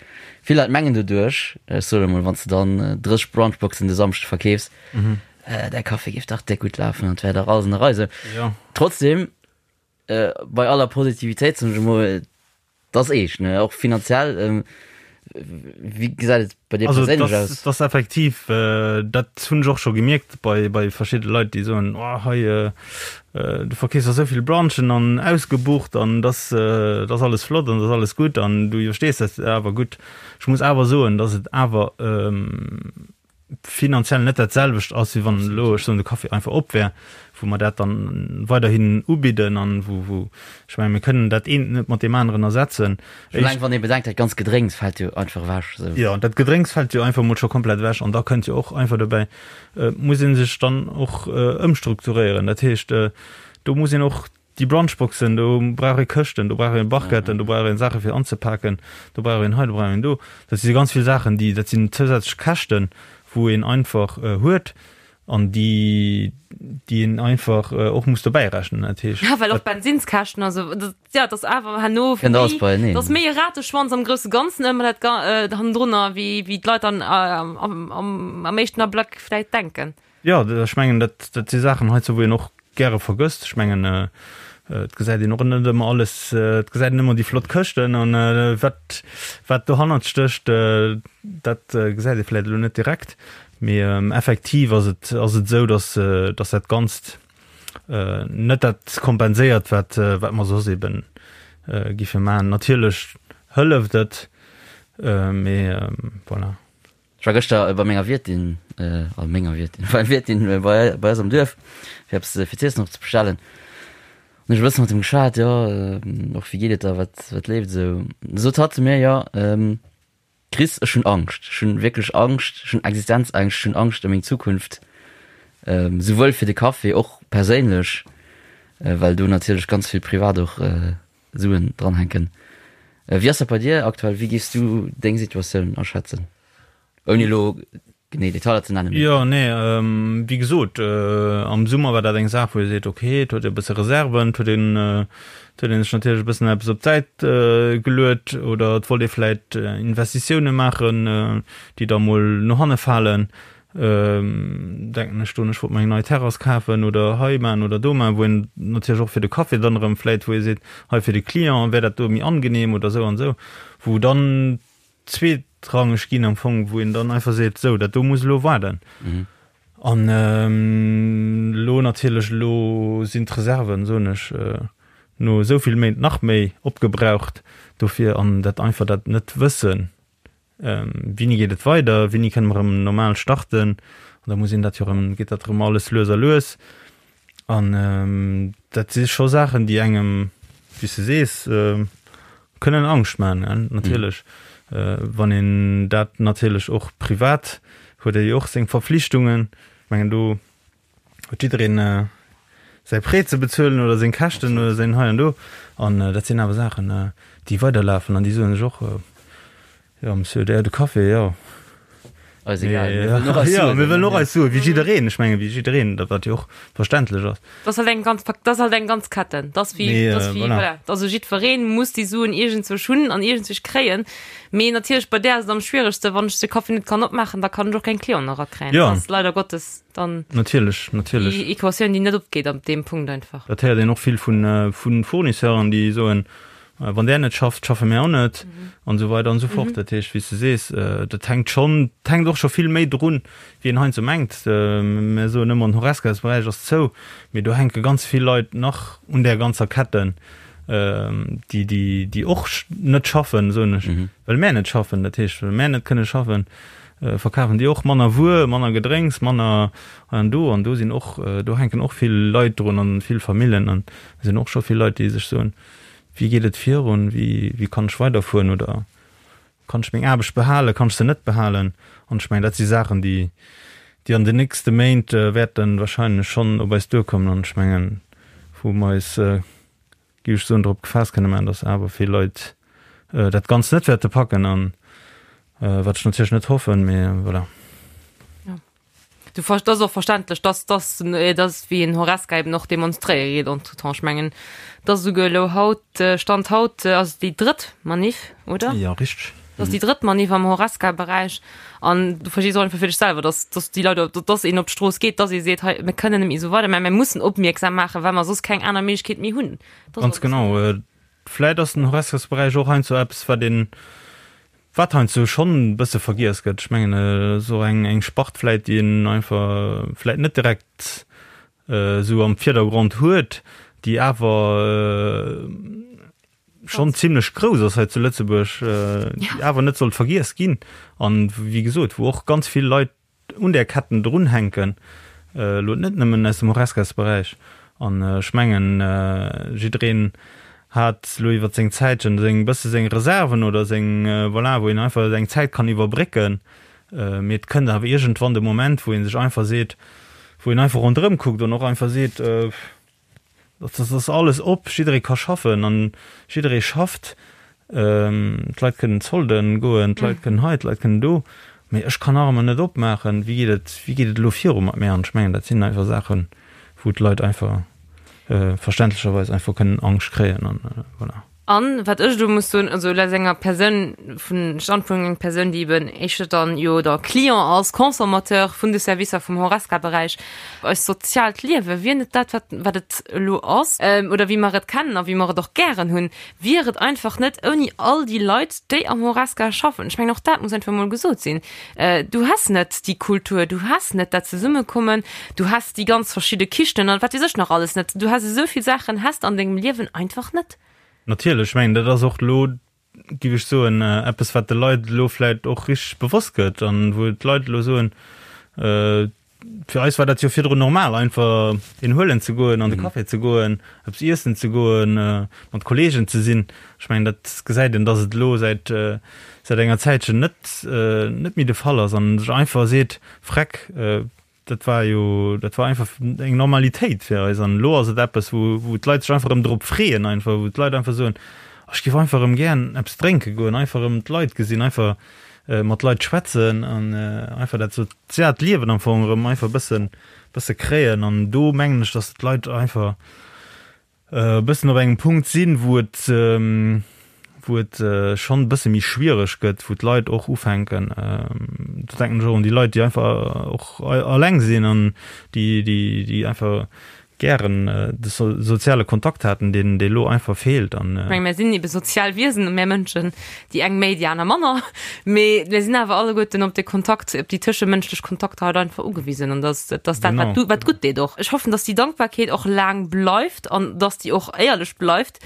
vill Leit mengen doduerch, ech soen emol, wann s de dann 30 Brunchboxen de Samschde verkeefs, däi Café géif dach déck gutt lafen an et wär dach alles an der Rei. Sou. Trotzdem, bei aller Positivitéit, soen ech emol, Et ass eescht, ne? Och finanziell. Wéi gesäit et bei dir Also perséinlech das, aus? das effektiv, äh, dat hunn ech och scho gemierkt bei, bei verschidde Leit, déi soen, oh, hei, äh, äh, du verkeefs der souvill Brunchen an ausgebucht an das, äh, das alles flott an das alles gutt an du iwwerstees dat awer gutt. Ech muss awer soen, dass et awer ähm, finanziell net dat selwecht ass, wéi wann elo, ech soen, de Café einfach op wär, wou mer dat dann weiderhin ubidden an wou, wou, ech mengen, mir kënnen dat eent net mat deem aneren ersetzen. Schon eleng wann ee bedenkt, dat ganz Gedrénks fält jo einfach ewech esou. Jo, dat Gedrénks fält jo einfach emol scho komplett ewech an da kënnt jo och einfach dobäi, et muss ee sech dann och ëmstrukturéieren. Dat heescht, do muss een och Déi Brunchboxen, do brauch ee Këschten, do brauch ee Barquetten, do brauch ee Saache fir anzepaken, do brauch een hei, do brauch een do. Dat si ganz vill Saachen, déi, dat sinn zousätzlech Käschten, wou een einfach huet an déi, déi een einfach och muss dobäi rechnen. Dat heescht. Ja, well och d'Bensinskäschten, also dat, ja, dat ass awer herno Kënnt alles méi, beieneen. dat ass méi e Rateschwanz am grousse Ganzen ëmmer dat Ga hannendrunner, wéi, wéi d'Leit dann am, am, am éischten Ablack vläicht denken. Jo, ech mengen, dat, dat si Saachen heizou, wou een och gäre vergësst. Ech mengen, et gesäit een och net ëmmer alles, et gesäit een ëmmer déi flott Këschten an wat, wat dohannert stécht, dat gesäit ee vläicht elo net direkt. Mee effektiv ass et, ass et esou, dass, dass dat Ganzt net dat kompenséiert, wat, wat mer soss eeben giffe maachen. Natierlech hëlleft et, mee voilà. Ech war gëschter bei menger Wiertin, also menger Wiertin, beim Wiertin bei, bei eis am Duerf, fir eppes fir z'iessen och ze bestellen. Hunn ech e bësse mat him geschwat, jo, och wéi geet et der, wat, wat leeft esou. Da sot hatt zu mir, jo, Chris, ech hunn Angscht, ech hunn wierklech Angscht, ech hunn Existenzängscht, ech hunn Angscht ëm meng Zukunft, souwuel fir de Café, och perséinlech, well do natierlech ganz vill privat och Suen dranhänken. Wéi ass dat bei dir aktuell, wéi géifs du deng Situatioun aschätzen, ouni elo genee Detailer ze nennen? Jo, nee, wéi gesot, am Summer war dat eng Saach, wou ee seet, okay, et huet ee e bësse Reserven, et huet een, et huet ee sech natierlech e bëssen eppes op d'Säit geluet oder et wollt ee vläicht Investitioune maachen, déi da mol no hanne falen. Denken ech do, ech wollt mer eng nei Terrass kafen oder hei maachen oder do maachen, wou een natierlech och fir de Café dann erëm vläicht, wou ee seet, hei fir de Client wär dat do méi angenehm oder esou an esou, wou dann zweetrangeg ginn am Fong, wou een dann einfach seet, sou, dat do muss elo waarden. An elo natierlech, elo sinn d'Reserven, soen ech, no esou vill Méint nach méi opgebraucht dofir an dat einfach dat net wëssen, wéini geet et weider, wéini kënne mer erëm normal starten. An da muss een dat jo erëm, geet dat erëm alles lues a lues. An dat si scho Saachen, déi engem, wéi s de sees, kënnen Angscht maachen, natierlech. Wann een dat natierlech och privat, huet ee jo och seng Verflichtungen. Ech mengen, do huet jiddereen säi Prêt ze bezuelen oder seng Käschten oder säin hei an do. An dat sinn awer Saachen, déi weiderlafen an déi soen sech och, Jo, Monsieur, der de Café, jo. Eis egal, mir wëllen och eis Suen. Jo, mir wëllen och eis Suen, wéi jiddereen. Ech mengen, wéi jiddereen, dat wat jo och verständlech ass. Dat ass halt eng ganz, dat ass halt eng ganz Ketten. Dat ass wéi, dat ass wéi, voilà. Also jiddwereen muss déi Suen iergendzwousch hunn an iergendzwousch kréien. Mee natierlech bei där ass et am schwieregsten, wann ech de Café net kann opmaachen, da kann ech och keng Clienten erakréien. Jo. Dat ass leider Gottes dann. Natierlech, natierlech. Déi Equatioun, déi net opgeet an deem Punkt einfach. Dat héiert een och vill vun, vu Fournisseuren, déi soen, Wann där net schafft, schaffe mär och net an esou weider an esou fort. Dat heescht, wéi s de sees, dat hänkt schonn, et hänkt och scho vill méi drun, wéi een heiansdo mengt. Mär soen ëmmer, den Horesca-Beräich ass zou, mee do hänke ganz vill Leit nach un där ganzer Ketten, déi, déi, déi och net schaffen, soen ech, well mär net schaffen. Dat heescht, well mär net kënne schaffen, verkafen déi och manner Wuer, manner Gedrénks, manner hei an do. An do sinn och, do hänken och vill Leit drun an vill Famillen an et sinn och scho vill Leit, déi sech soen, Wéi geet et virun? Wéi, wéi kann ech weiderfueren oder kann ech meng Aarbecht behalen, kann ech se net behalen? An ech mengen, dat si Saachen, déi, déi an den nächste Méint wäerte wahrscheinlech schonn op eis duerkommen. An ech mengen, wou mer eis, géif ech soen, drop gefaasst kënne maachen, datt awer vill Leit dat Ganzt net wäerte packen an wat ech natierlech net hoffen, mee voilà. Du ver das och verständlech, dass dass dass wéi en Horesca eben och demonstréiere geet entretemps. Ech mengen, dass esouguer elo haut, Stand haut ass et déi drëtt Manif, oder? Jo, richteg. Dat ass déi drëtt Manif am Horesca-Beräich an du verstees och einfach fir dech selwer, dass dass déi Leit op dass een op d'Strooss geet, dass ee seet, hei mir kënnen net méi esou weider, mä mir mussen opmierksam maachen, well mer soss keng aner Méiglechkeet méi hunn. Dat ass Ganz genau. Vläit ass den Horescasberäich och heiansdo eppes, wat een Wat heiansdo schonn e bësse vergiess gëtt, ech mengen, et ass och eng eng Spart vläit, déi een einfach vläit net direkt esou am Virdergrond huet, déi awer schonn zimlech grouss ass hei zu Lëtzebuerg, déi awer net sollt vergiess ginn an, wéi gesot, wou och ganz vill Leit un där Ketten drunhänken, elo net nëmmen aus dem Horesca-Beräich. An ech mengen, jiddereen hat elo iwwer seng Zäitchen seng bësse seng Reserven oder seng, voilà, wou een einfach eng Zäit kann iwwerbrécken. Mee et kënnt awer iergendwann de Moment, wou ee sech einfach seet, wou een einfach ronderëm kuckt an och einfach seet, Dat ass alles op, jidderee ka schaffen an jidderee schafft. D'Leit kënnen Zolden goen, d'Leit kënnen hei, d'Leit kënnen do, mee ech kann nach ëmmer net opmaachen. Wéi geet et, wéi geet et elo viru mat mär? An ech mengen, dat sinn einfach Saachen, wou d'Leit einfach verständlecherweis einfach kënnen Angscht kréien an voilà. An wat ech elo muss soen, also aus enger Persoun, vun Standpunkt enger Persoun, déi eben éischter dann jo da Client ass, Consommateur vun de Servicer vum Horesca-Beräich, eist soziaalt Liewe wier net dat, wat, wat et elo ass, oder wéi mer et kennen a wéi mer et och gären hunn, wier et einfach net ouni all déi Leit, déi am Horesca schaffen. Ech mengen, och dat muss einfach emol gesot sinn. Du häss net déi Kultur, du häss net dat Zesummekommen, du häss déi ganz verschidde Kichen an wat weess ech nach alles net. Du häss esou vill Saachen häss de an dengem Liewen einfach net. Natierlech, ech mengen, dat ass och elo, géif ech soen, eppes, wat de Leit elo vläicht och richteg bewosst gëtt an wou d'Leit elo soen. Fir eis war dat jo virdrun normal, einfach een huelen ze goen, an de Café ze goen, eppes iessen ze goen, mat Kolleegen ze sinn. Ech mengen, dat gesäit een, dass et elo säit, säit enger Zäitchen net, net méi de Fall ass an sech einfach seet, Freck, dat war jo, dat war einfach eng Normalitéit fir eis an elo ass et eppes, wou, wou d'Leit sech einfach erëm drop freeën, einfach, wou d'Leit einfach soen, ech géif einfach erëm gären eppes drénke goen, einfach erëm d'Leit gesinn, einfach mat Leit schwätzen an einfach dat soziaalt Liewen am Fong erëm einfach e bëssen, bësse kréien. An do mengen ech, datt d'Leit einfach e bëssen op engem Punkt sinn, wou et, wou et schonn e bësse méi schwiereg gëtt, wou d'Leit och ufänken, do denken ech och un déi Leit, déi einfach och alleng sinn an déi, déi, déi einfach gären de soziale Kontakt haten, deen dee lo einfach feelt an. Ech menge mir sinn ebe sozial Wiesen, mär Mënschen, déi eng méi, déi aner manner, mee mir sinn awer alleguerten op de Kontakt, op déi tëschemënschlech Kontakter halt einfach ugewisen an dass dass dat wat du wat gutt deet och. Ech hoffen, dass déi Dankbarkeet och laang bleift an dass déi och éierlech bleift.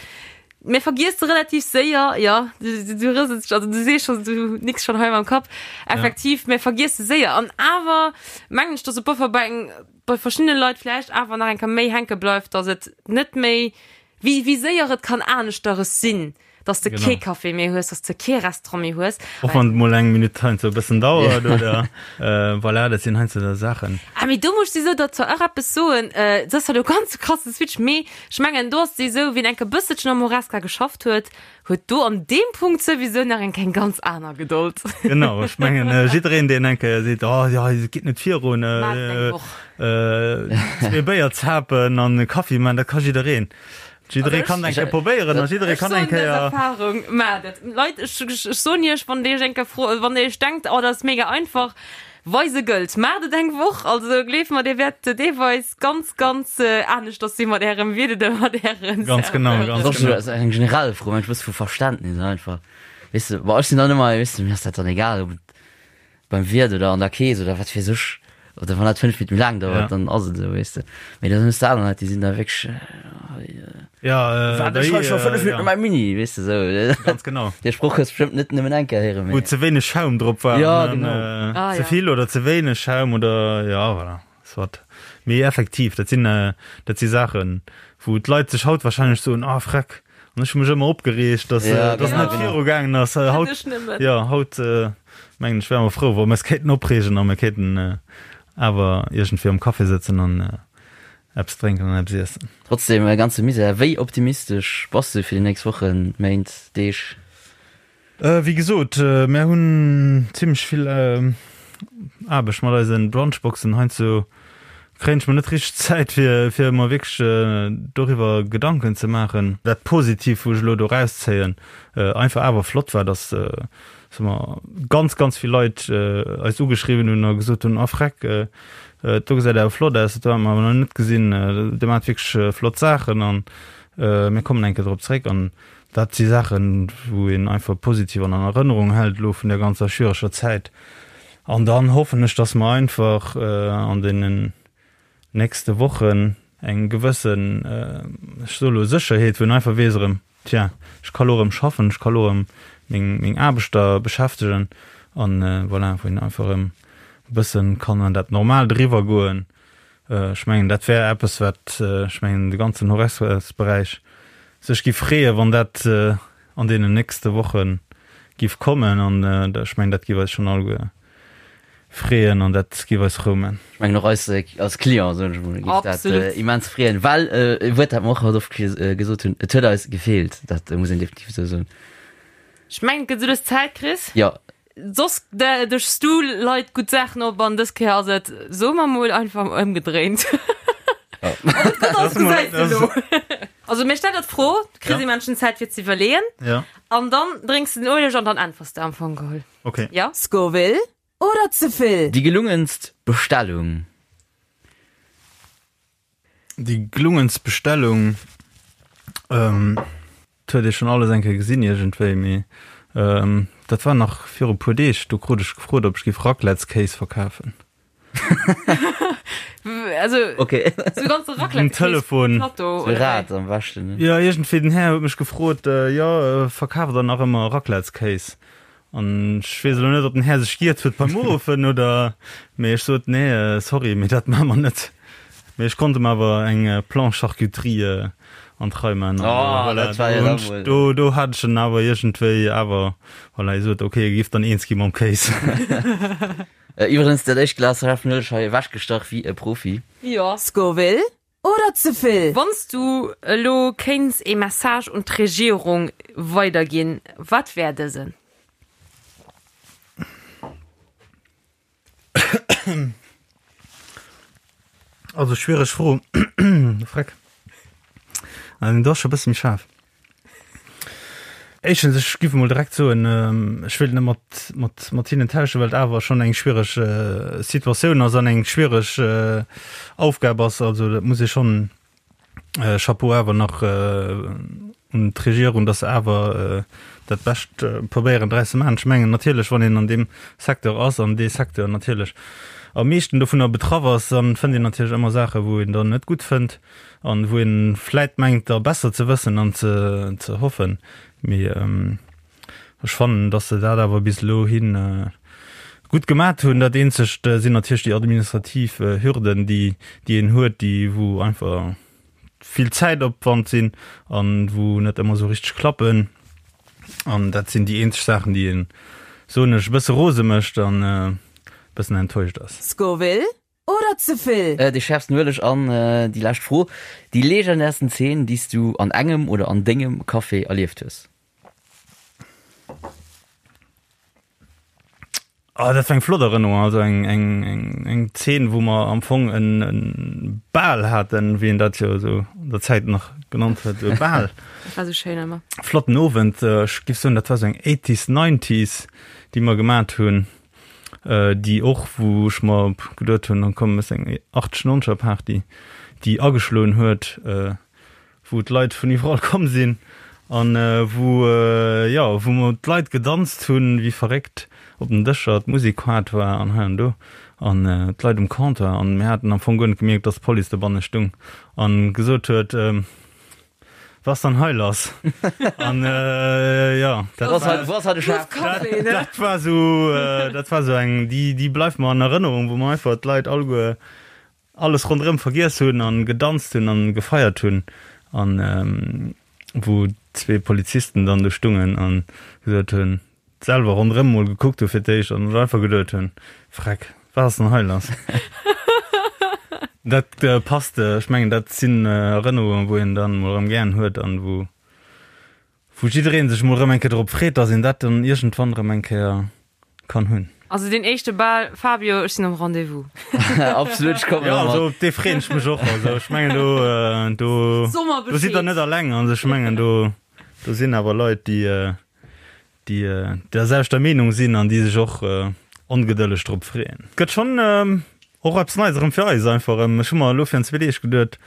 Mir vergiesse relativ séier, jo, du rësels, also du sees schonn, du nicks schonn hei mam Kapp, effektiv, mir vergiesse séier an awer mengen ech, dass e Buffer bei eng bei verschiddene Leit vläicht awer nach eng Kéier méi hänke bleift, dass et net méi, wéi, wéi séier et kann aneschteres sinn, dass de kee Café méi hues, dass de kee Restaurant méi hues. Och wann et mol eng Minutt heiansdo e bëssen dauert oder voilà, dat sinn heiansdo da Saachen. Ah, mee do muss ech souwisou der zwar och eppes soen, dat ass zwar elo ganz e krasse Switch, mee ech mengen do ass et esou, wien eng Kéier e bësselchen am Horesca geschafft huet, Huet do an deem Punkt souwisou nach eng eng ganz aner Gedold. Genau, ech mengen jiddereen deen eng Kéier seet, oh jo, et geet net virun, zwee Béier zapen an e Kaffi man, dat ka jiddereen. Jidderee kann eng Kéier probéieren a jidderee kann eng Kéier. Ech soen dës Erfahrung, maacht et. Leit, ech soen iech, wann dir iech eng Kéier fro, wann dir iech denkt, oh dat ass mega einfach, Weise gëllt. Maacht et eng Woch, also gleeft mer, dir wäert deelweis ganz, ganz aneschters si mat ärem Wiert oder mat ären Ganz genau, ganz genau. Dat ass eng generell Fro, mensch, e bësse vu Verständnis einfach. Weess de, bon, ech sinn dann ëmmer, weess de, mir ass dat dann egal, ob et beim Wiert oder an der Kees oder wat weess ech, oder wann dat 5 Minutte méi laang dauert, dann ass et esou, weess de. Mee dann hues de aner Leit, déi sinn da wierklech, Ja, Wat, ech hei scho 5 Minutten op mäi Mini, weess de sou. Ganz genau. Dee Sproch hues bestëmmt net nëmmen eng Kéier héieren, mee. Wou ze wéineg Schaum drop war. Ja, genau. Ah, Ze vill oder ze wéineg Schaum oder, ja, voilà, soit. Mee effektiv, dat sinn, dat si Saachen, wou d'Leit sech haut wahrscheinlech soen, ah, freck, an ech hu mech ëmmer opgereegt, dass, dass net viru gaangen ass. Haut, jo, haut, mengen ech, wäre mer frou, wa mer eis kéinten opreegen a mer kéinten awer iergendwéi am Café sëtzen an Eppes drénken an eppes iessen. Trotz deem ganze Misär, wéi optimistesch bass du fir déi nächst Wochen, Méint, Deeg? Wéi gesot, mär hunn zimmlech vill Aarbecht mat eise Brunchboxen. Heiansdo kréien ech mer net richteg Zäit, fir fir mer wierklech doriwwer Gedanken ze maachen. Dat Positivt, wou ech elo do erauszéien, einfach awer flott war, dass soe mer, ganz, ganz vill Leit eis ugeschriwwen hunn a gesot hunn, Ah freck, Do gesäit awer flott aus, dat hu mer awer nach net gesinn. Dir maacht wierklech flott Saachen an mir kommen eng Kéier drop zréck. An dat si Saachen, wou een einfach positiv an Erënnerung hält elo vun där ganzer schwiereger Zäit. An dann hoffen ech, dass mer einfach an deenen nächste Wochen eng gewëssen, ech soe lo Sécherheet, wou een einfach weess erëm, Tja, ech ka lo erëm schaffen, ech ka lo erëm meng, meng Aarbechter beschäftegen an voilà, wou een einfach erëm e bëssen kann an dat Normaalt eriwwer goen. Ech mengen, dat wär eppes, wat, ech mengen, de ganzen Horesca-Beräich sech giff freeën, wann dat an deenen nächste Woche giff kommen an ech mengen, dat giff eis schonn alleguer freeën an dat giff eis frou man. Ech mengen och eis als Client, soen ech emol, giff dat immens freeën, well e Wuert, dat mer och haut oft gesot hunn, et huet eis gefeelt, dat muss een definitiv esou soen. Ech mengen, et gëtt esou lues Zäit, Chris. Jo. Soss dëschs du Leit gutt Saachen op an dës Kéier ass et, soe mer mol, einfach ëmgedréint. Ob et gutt ass, gesäis de elo. Also mir stellen der d'Fro, du kriss ee Menschen Zäit fir ze iwwerleeën an dann drénks de den Ueleg an dann äntwers de am Fong geholl. Okay. Ja. Scoville oder ze vill? Déi gelungenst Bestellung? Déi gelungenst Bestellung, ähm, dat huet ee schonn alles eng Kéier gesinn iergendwéi, mee ähm, dat war nach viru puer Deeg, do krut ech gefrot, ob ech géif Raclettskéis verkafen. Also, okay. So ganze Raclette um Telefon. Plateau, so Rad am beschten. Ne? Ja, irgendwie den Här huet mech gefrot, äh, ja, äh, verkaaft der nach ëmmer Raclettskéis? An ech weess elo net, ob den Här sech giert huet beim Uruffen oder, mee ech sot, nee, sorry, mee dat maache mer net. Mee ech konnt em awer eng Planche Charcuterie an d'Rei man. An Oh, voilà, dat war jo do da hunn ech, mol. do, do hat ech en awer iergendwéi awer, voilà, hie sot, okay, e giff dann eens gi mam Kéis. Iwwregens, dat éischt Glas Schaarfen Ueleg hei ewechgestach wéi e Profi. Jo. Scoville Oder ze vill? Wann s du elo kéints ee Message un d'Regierung weiderginn, wat wär dësen? Also schwiereg Fro. Freck. Dat ass scho e bësse méi schaarf. Éischtens, ech giff emol direkt soen, ech wéilt net mat, mat, mat hinnen tauschen, well et awer schonn eng schwiereg Situatioun ass an eng schwiereg Aufgab ass. Also dat muss ee schonn, Chapeau awer nach un d'Regierung, datt se awer dat Bescht probéieren draus ze maachen. Ech mengen natierlech, wann een an deem Secteur ass an dee Secteur natierlech am meeschten dovunner betraff ass, dann fënnt een natierlech ëmmer Saache wou een dann net gutt fënnt. An wou een vläit mengt da besser ze wëssen an ze ze hoffen. Mee ech fannen, dass se dat awer bis elo hin gutt gemat hunn. Dat eenzegt sinn natierlech déi administrativ Hürden, déi déi een huet, déi wou einfach vill Zäitopwand sinn an wou net ëmmer esou richteg klappen. An dat sinn déi eenzeg Saachen, déi een, soen ech, e bësse rose mécht an e bëssen enttäuscht ass. Scoville Oder ze vill? Déi schärfsten Ueleg an déi lescht Fro, Déi legendärsten Zeen, déi s du an engem oder an dengem Café erlieft hues? Ah, dat war eng flott Erënnerung, also eng, eng, eng, eng Zeen, wou mer am Fong en, en Bal haten, wéi een dat jo esou an der Zäit nach genannt huet, e Bal. Dat war esou schéin ëmmer. Flotten Owend, ech géif soen, dat war esou eng Eighties, Nineties, déi mer gemat hunn. déi och, wou ech mer geduet hunn, komm méchs eng 80 noncher Party, déi ageschloen huet, wou d'Leit vun iwwerall komm sinn an wou, jo, wou mer d'Leit gedanzt hunn wéi verréckt op den Dëscher, d'Musek haart war an hei an do an d'Leit um Comptoir an mir haten am Fong guer net gemierkt, dass d'Police dobanne stung an gesot huet, Was dann hei lass? An äh, ja, dat Was war, was hat de Chef? Dat, dat war so, äh, dat war so eng, déi, déi bleift mer an Erënnerung, wou mer einfach d'Leit alleguer alles ronderëm vergiess hunn an gedanzt hunn an gefeiert hunn an ähm, wou zwee Polizisten dann do stungen an gesot hunn, selwer ronderëm mol gekuckt hu fir d'éischt an sech einfach geduet hunn, Freck, wat ass denn hei lass? Dat passt, ech mengen dat sinn Erënnerungen, wou een dann mol erëm gären huet an wou wou jiddereen sech mol erëm eng Kéier drop freet, dass een dat dann iergendwann erëm eng Kéier kann hunn. Also deen éischte Bal, Fabio, ech sinn am Rendez-vous. Absolut, ech kommen Jo, och mat. also op dee freeën ech mech och. Also ech mengen do do do sidd der net alleng. Also ech mengen do do sinn awer Leit, déi déi der selwechter Meenung sinn an déi sech och ongedëlleg drop freeën. Gëtt schonn och eppes Neies erëm fir eis einfach erëm. Ech hu mer elo virun zwee Deeg geduet,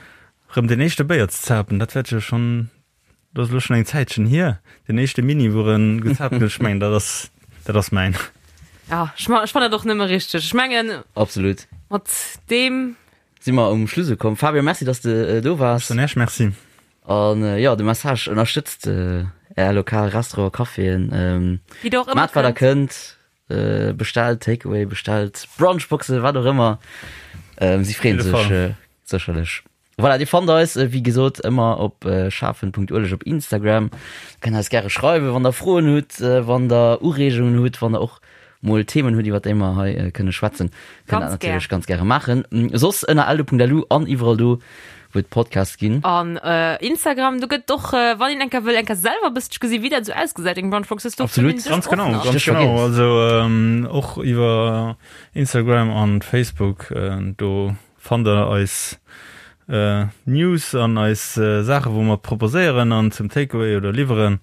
erëm deen éischte Béier ze zapen, dat wäert jo schonn, dat ass elo schonn eng Zäitchen hier, deen éischte Mini wou erëm gezaapt gëtt, ech mengen dat ass, dat ass mäin. Ja, ech fannen dat och nëmme richteg. Ech mengen. Absolut. Mat deem. Si mer um Schluss ukomm. Fabio, merci, dass de do waars. Ech soen Iech Merci. An jo, de Message, ënnerstëtzt är lokal Restaurant, Caféen, maacht wat der kënnt, bestellt Takeaway, bestellt Brunchboxen, wat och ëmmer, si freeën sech sécherlech. Voilà, dir fannt eis wéi gesot ëmmer op schafen.ueleg op Instagram. Kënnt eis gäre schreiwen, wann der Froen hutt, wann der Ureegungen hutt, wann der och mol Themen hutt, iwwer déi mer hei kënne schwätzen, kënnt dat natierlech ganz gäre maachen. Soss ënner eldo.lu an iwwerall do, wou et Podcasts ginn. An Instagram, do gëtt och, wann een enker wëll enker selwer e bësselche gesi wéi dat esou ausgesäit, eng Brunchbox, do Absolut. fënnt een sech Ganz och genau, nach. ganz Stéchwort genau. Games. Also och iwwer Instagram an Facebook, do fannt der eis News an eis Saache wou mer proposéieren an zum Takeaway oder liwweren.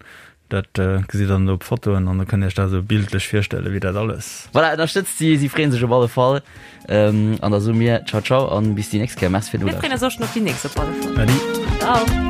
Dat gesitt der dann op Fotoen an da kënnt Iech dat esou bildlech virstellen, wéi dat alles. Voilà, ënnerstëtzt si, si freeën sech op alle Fall. An da soe mir Ciao ciao an bis déi nächst Kéier. Merci fir Mir freeën d'Nolauschteren. eis och schon op déi nächst op alle Fall. Adi. Ciao.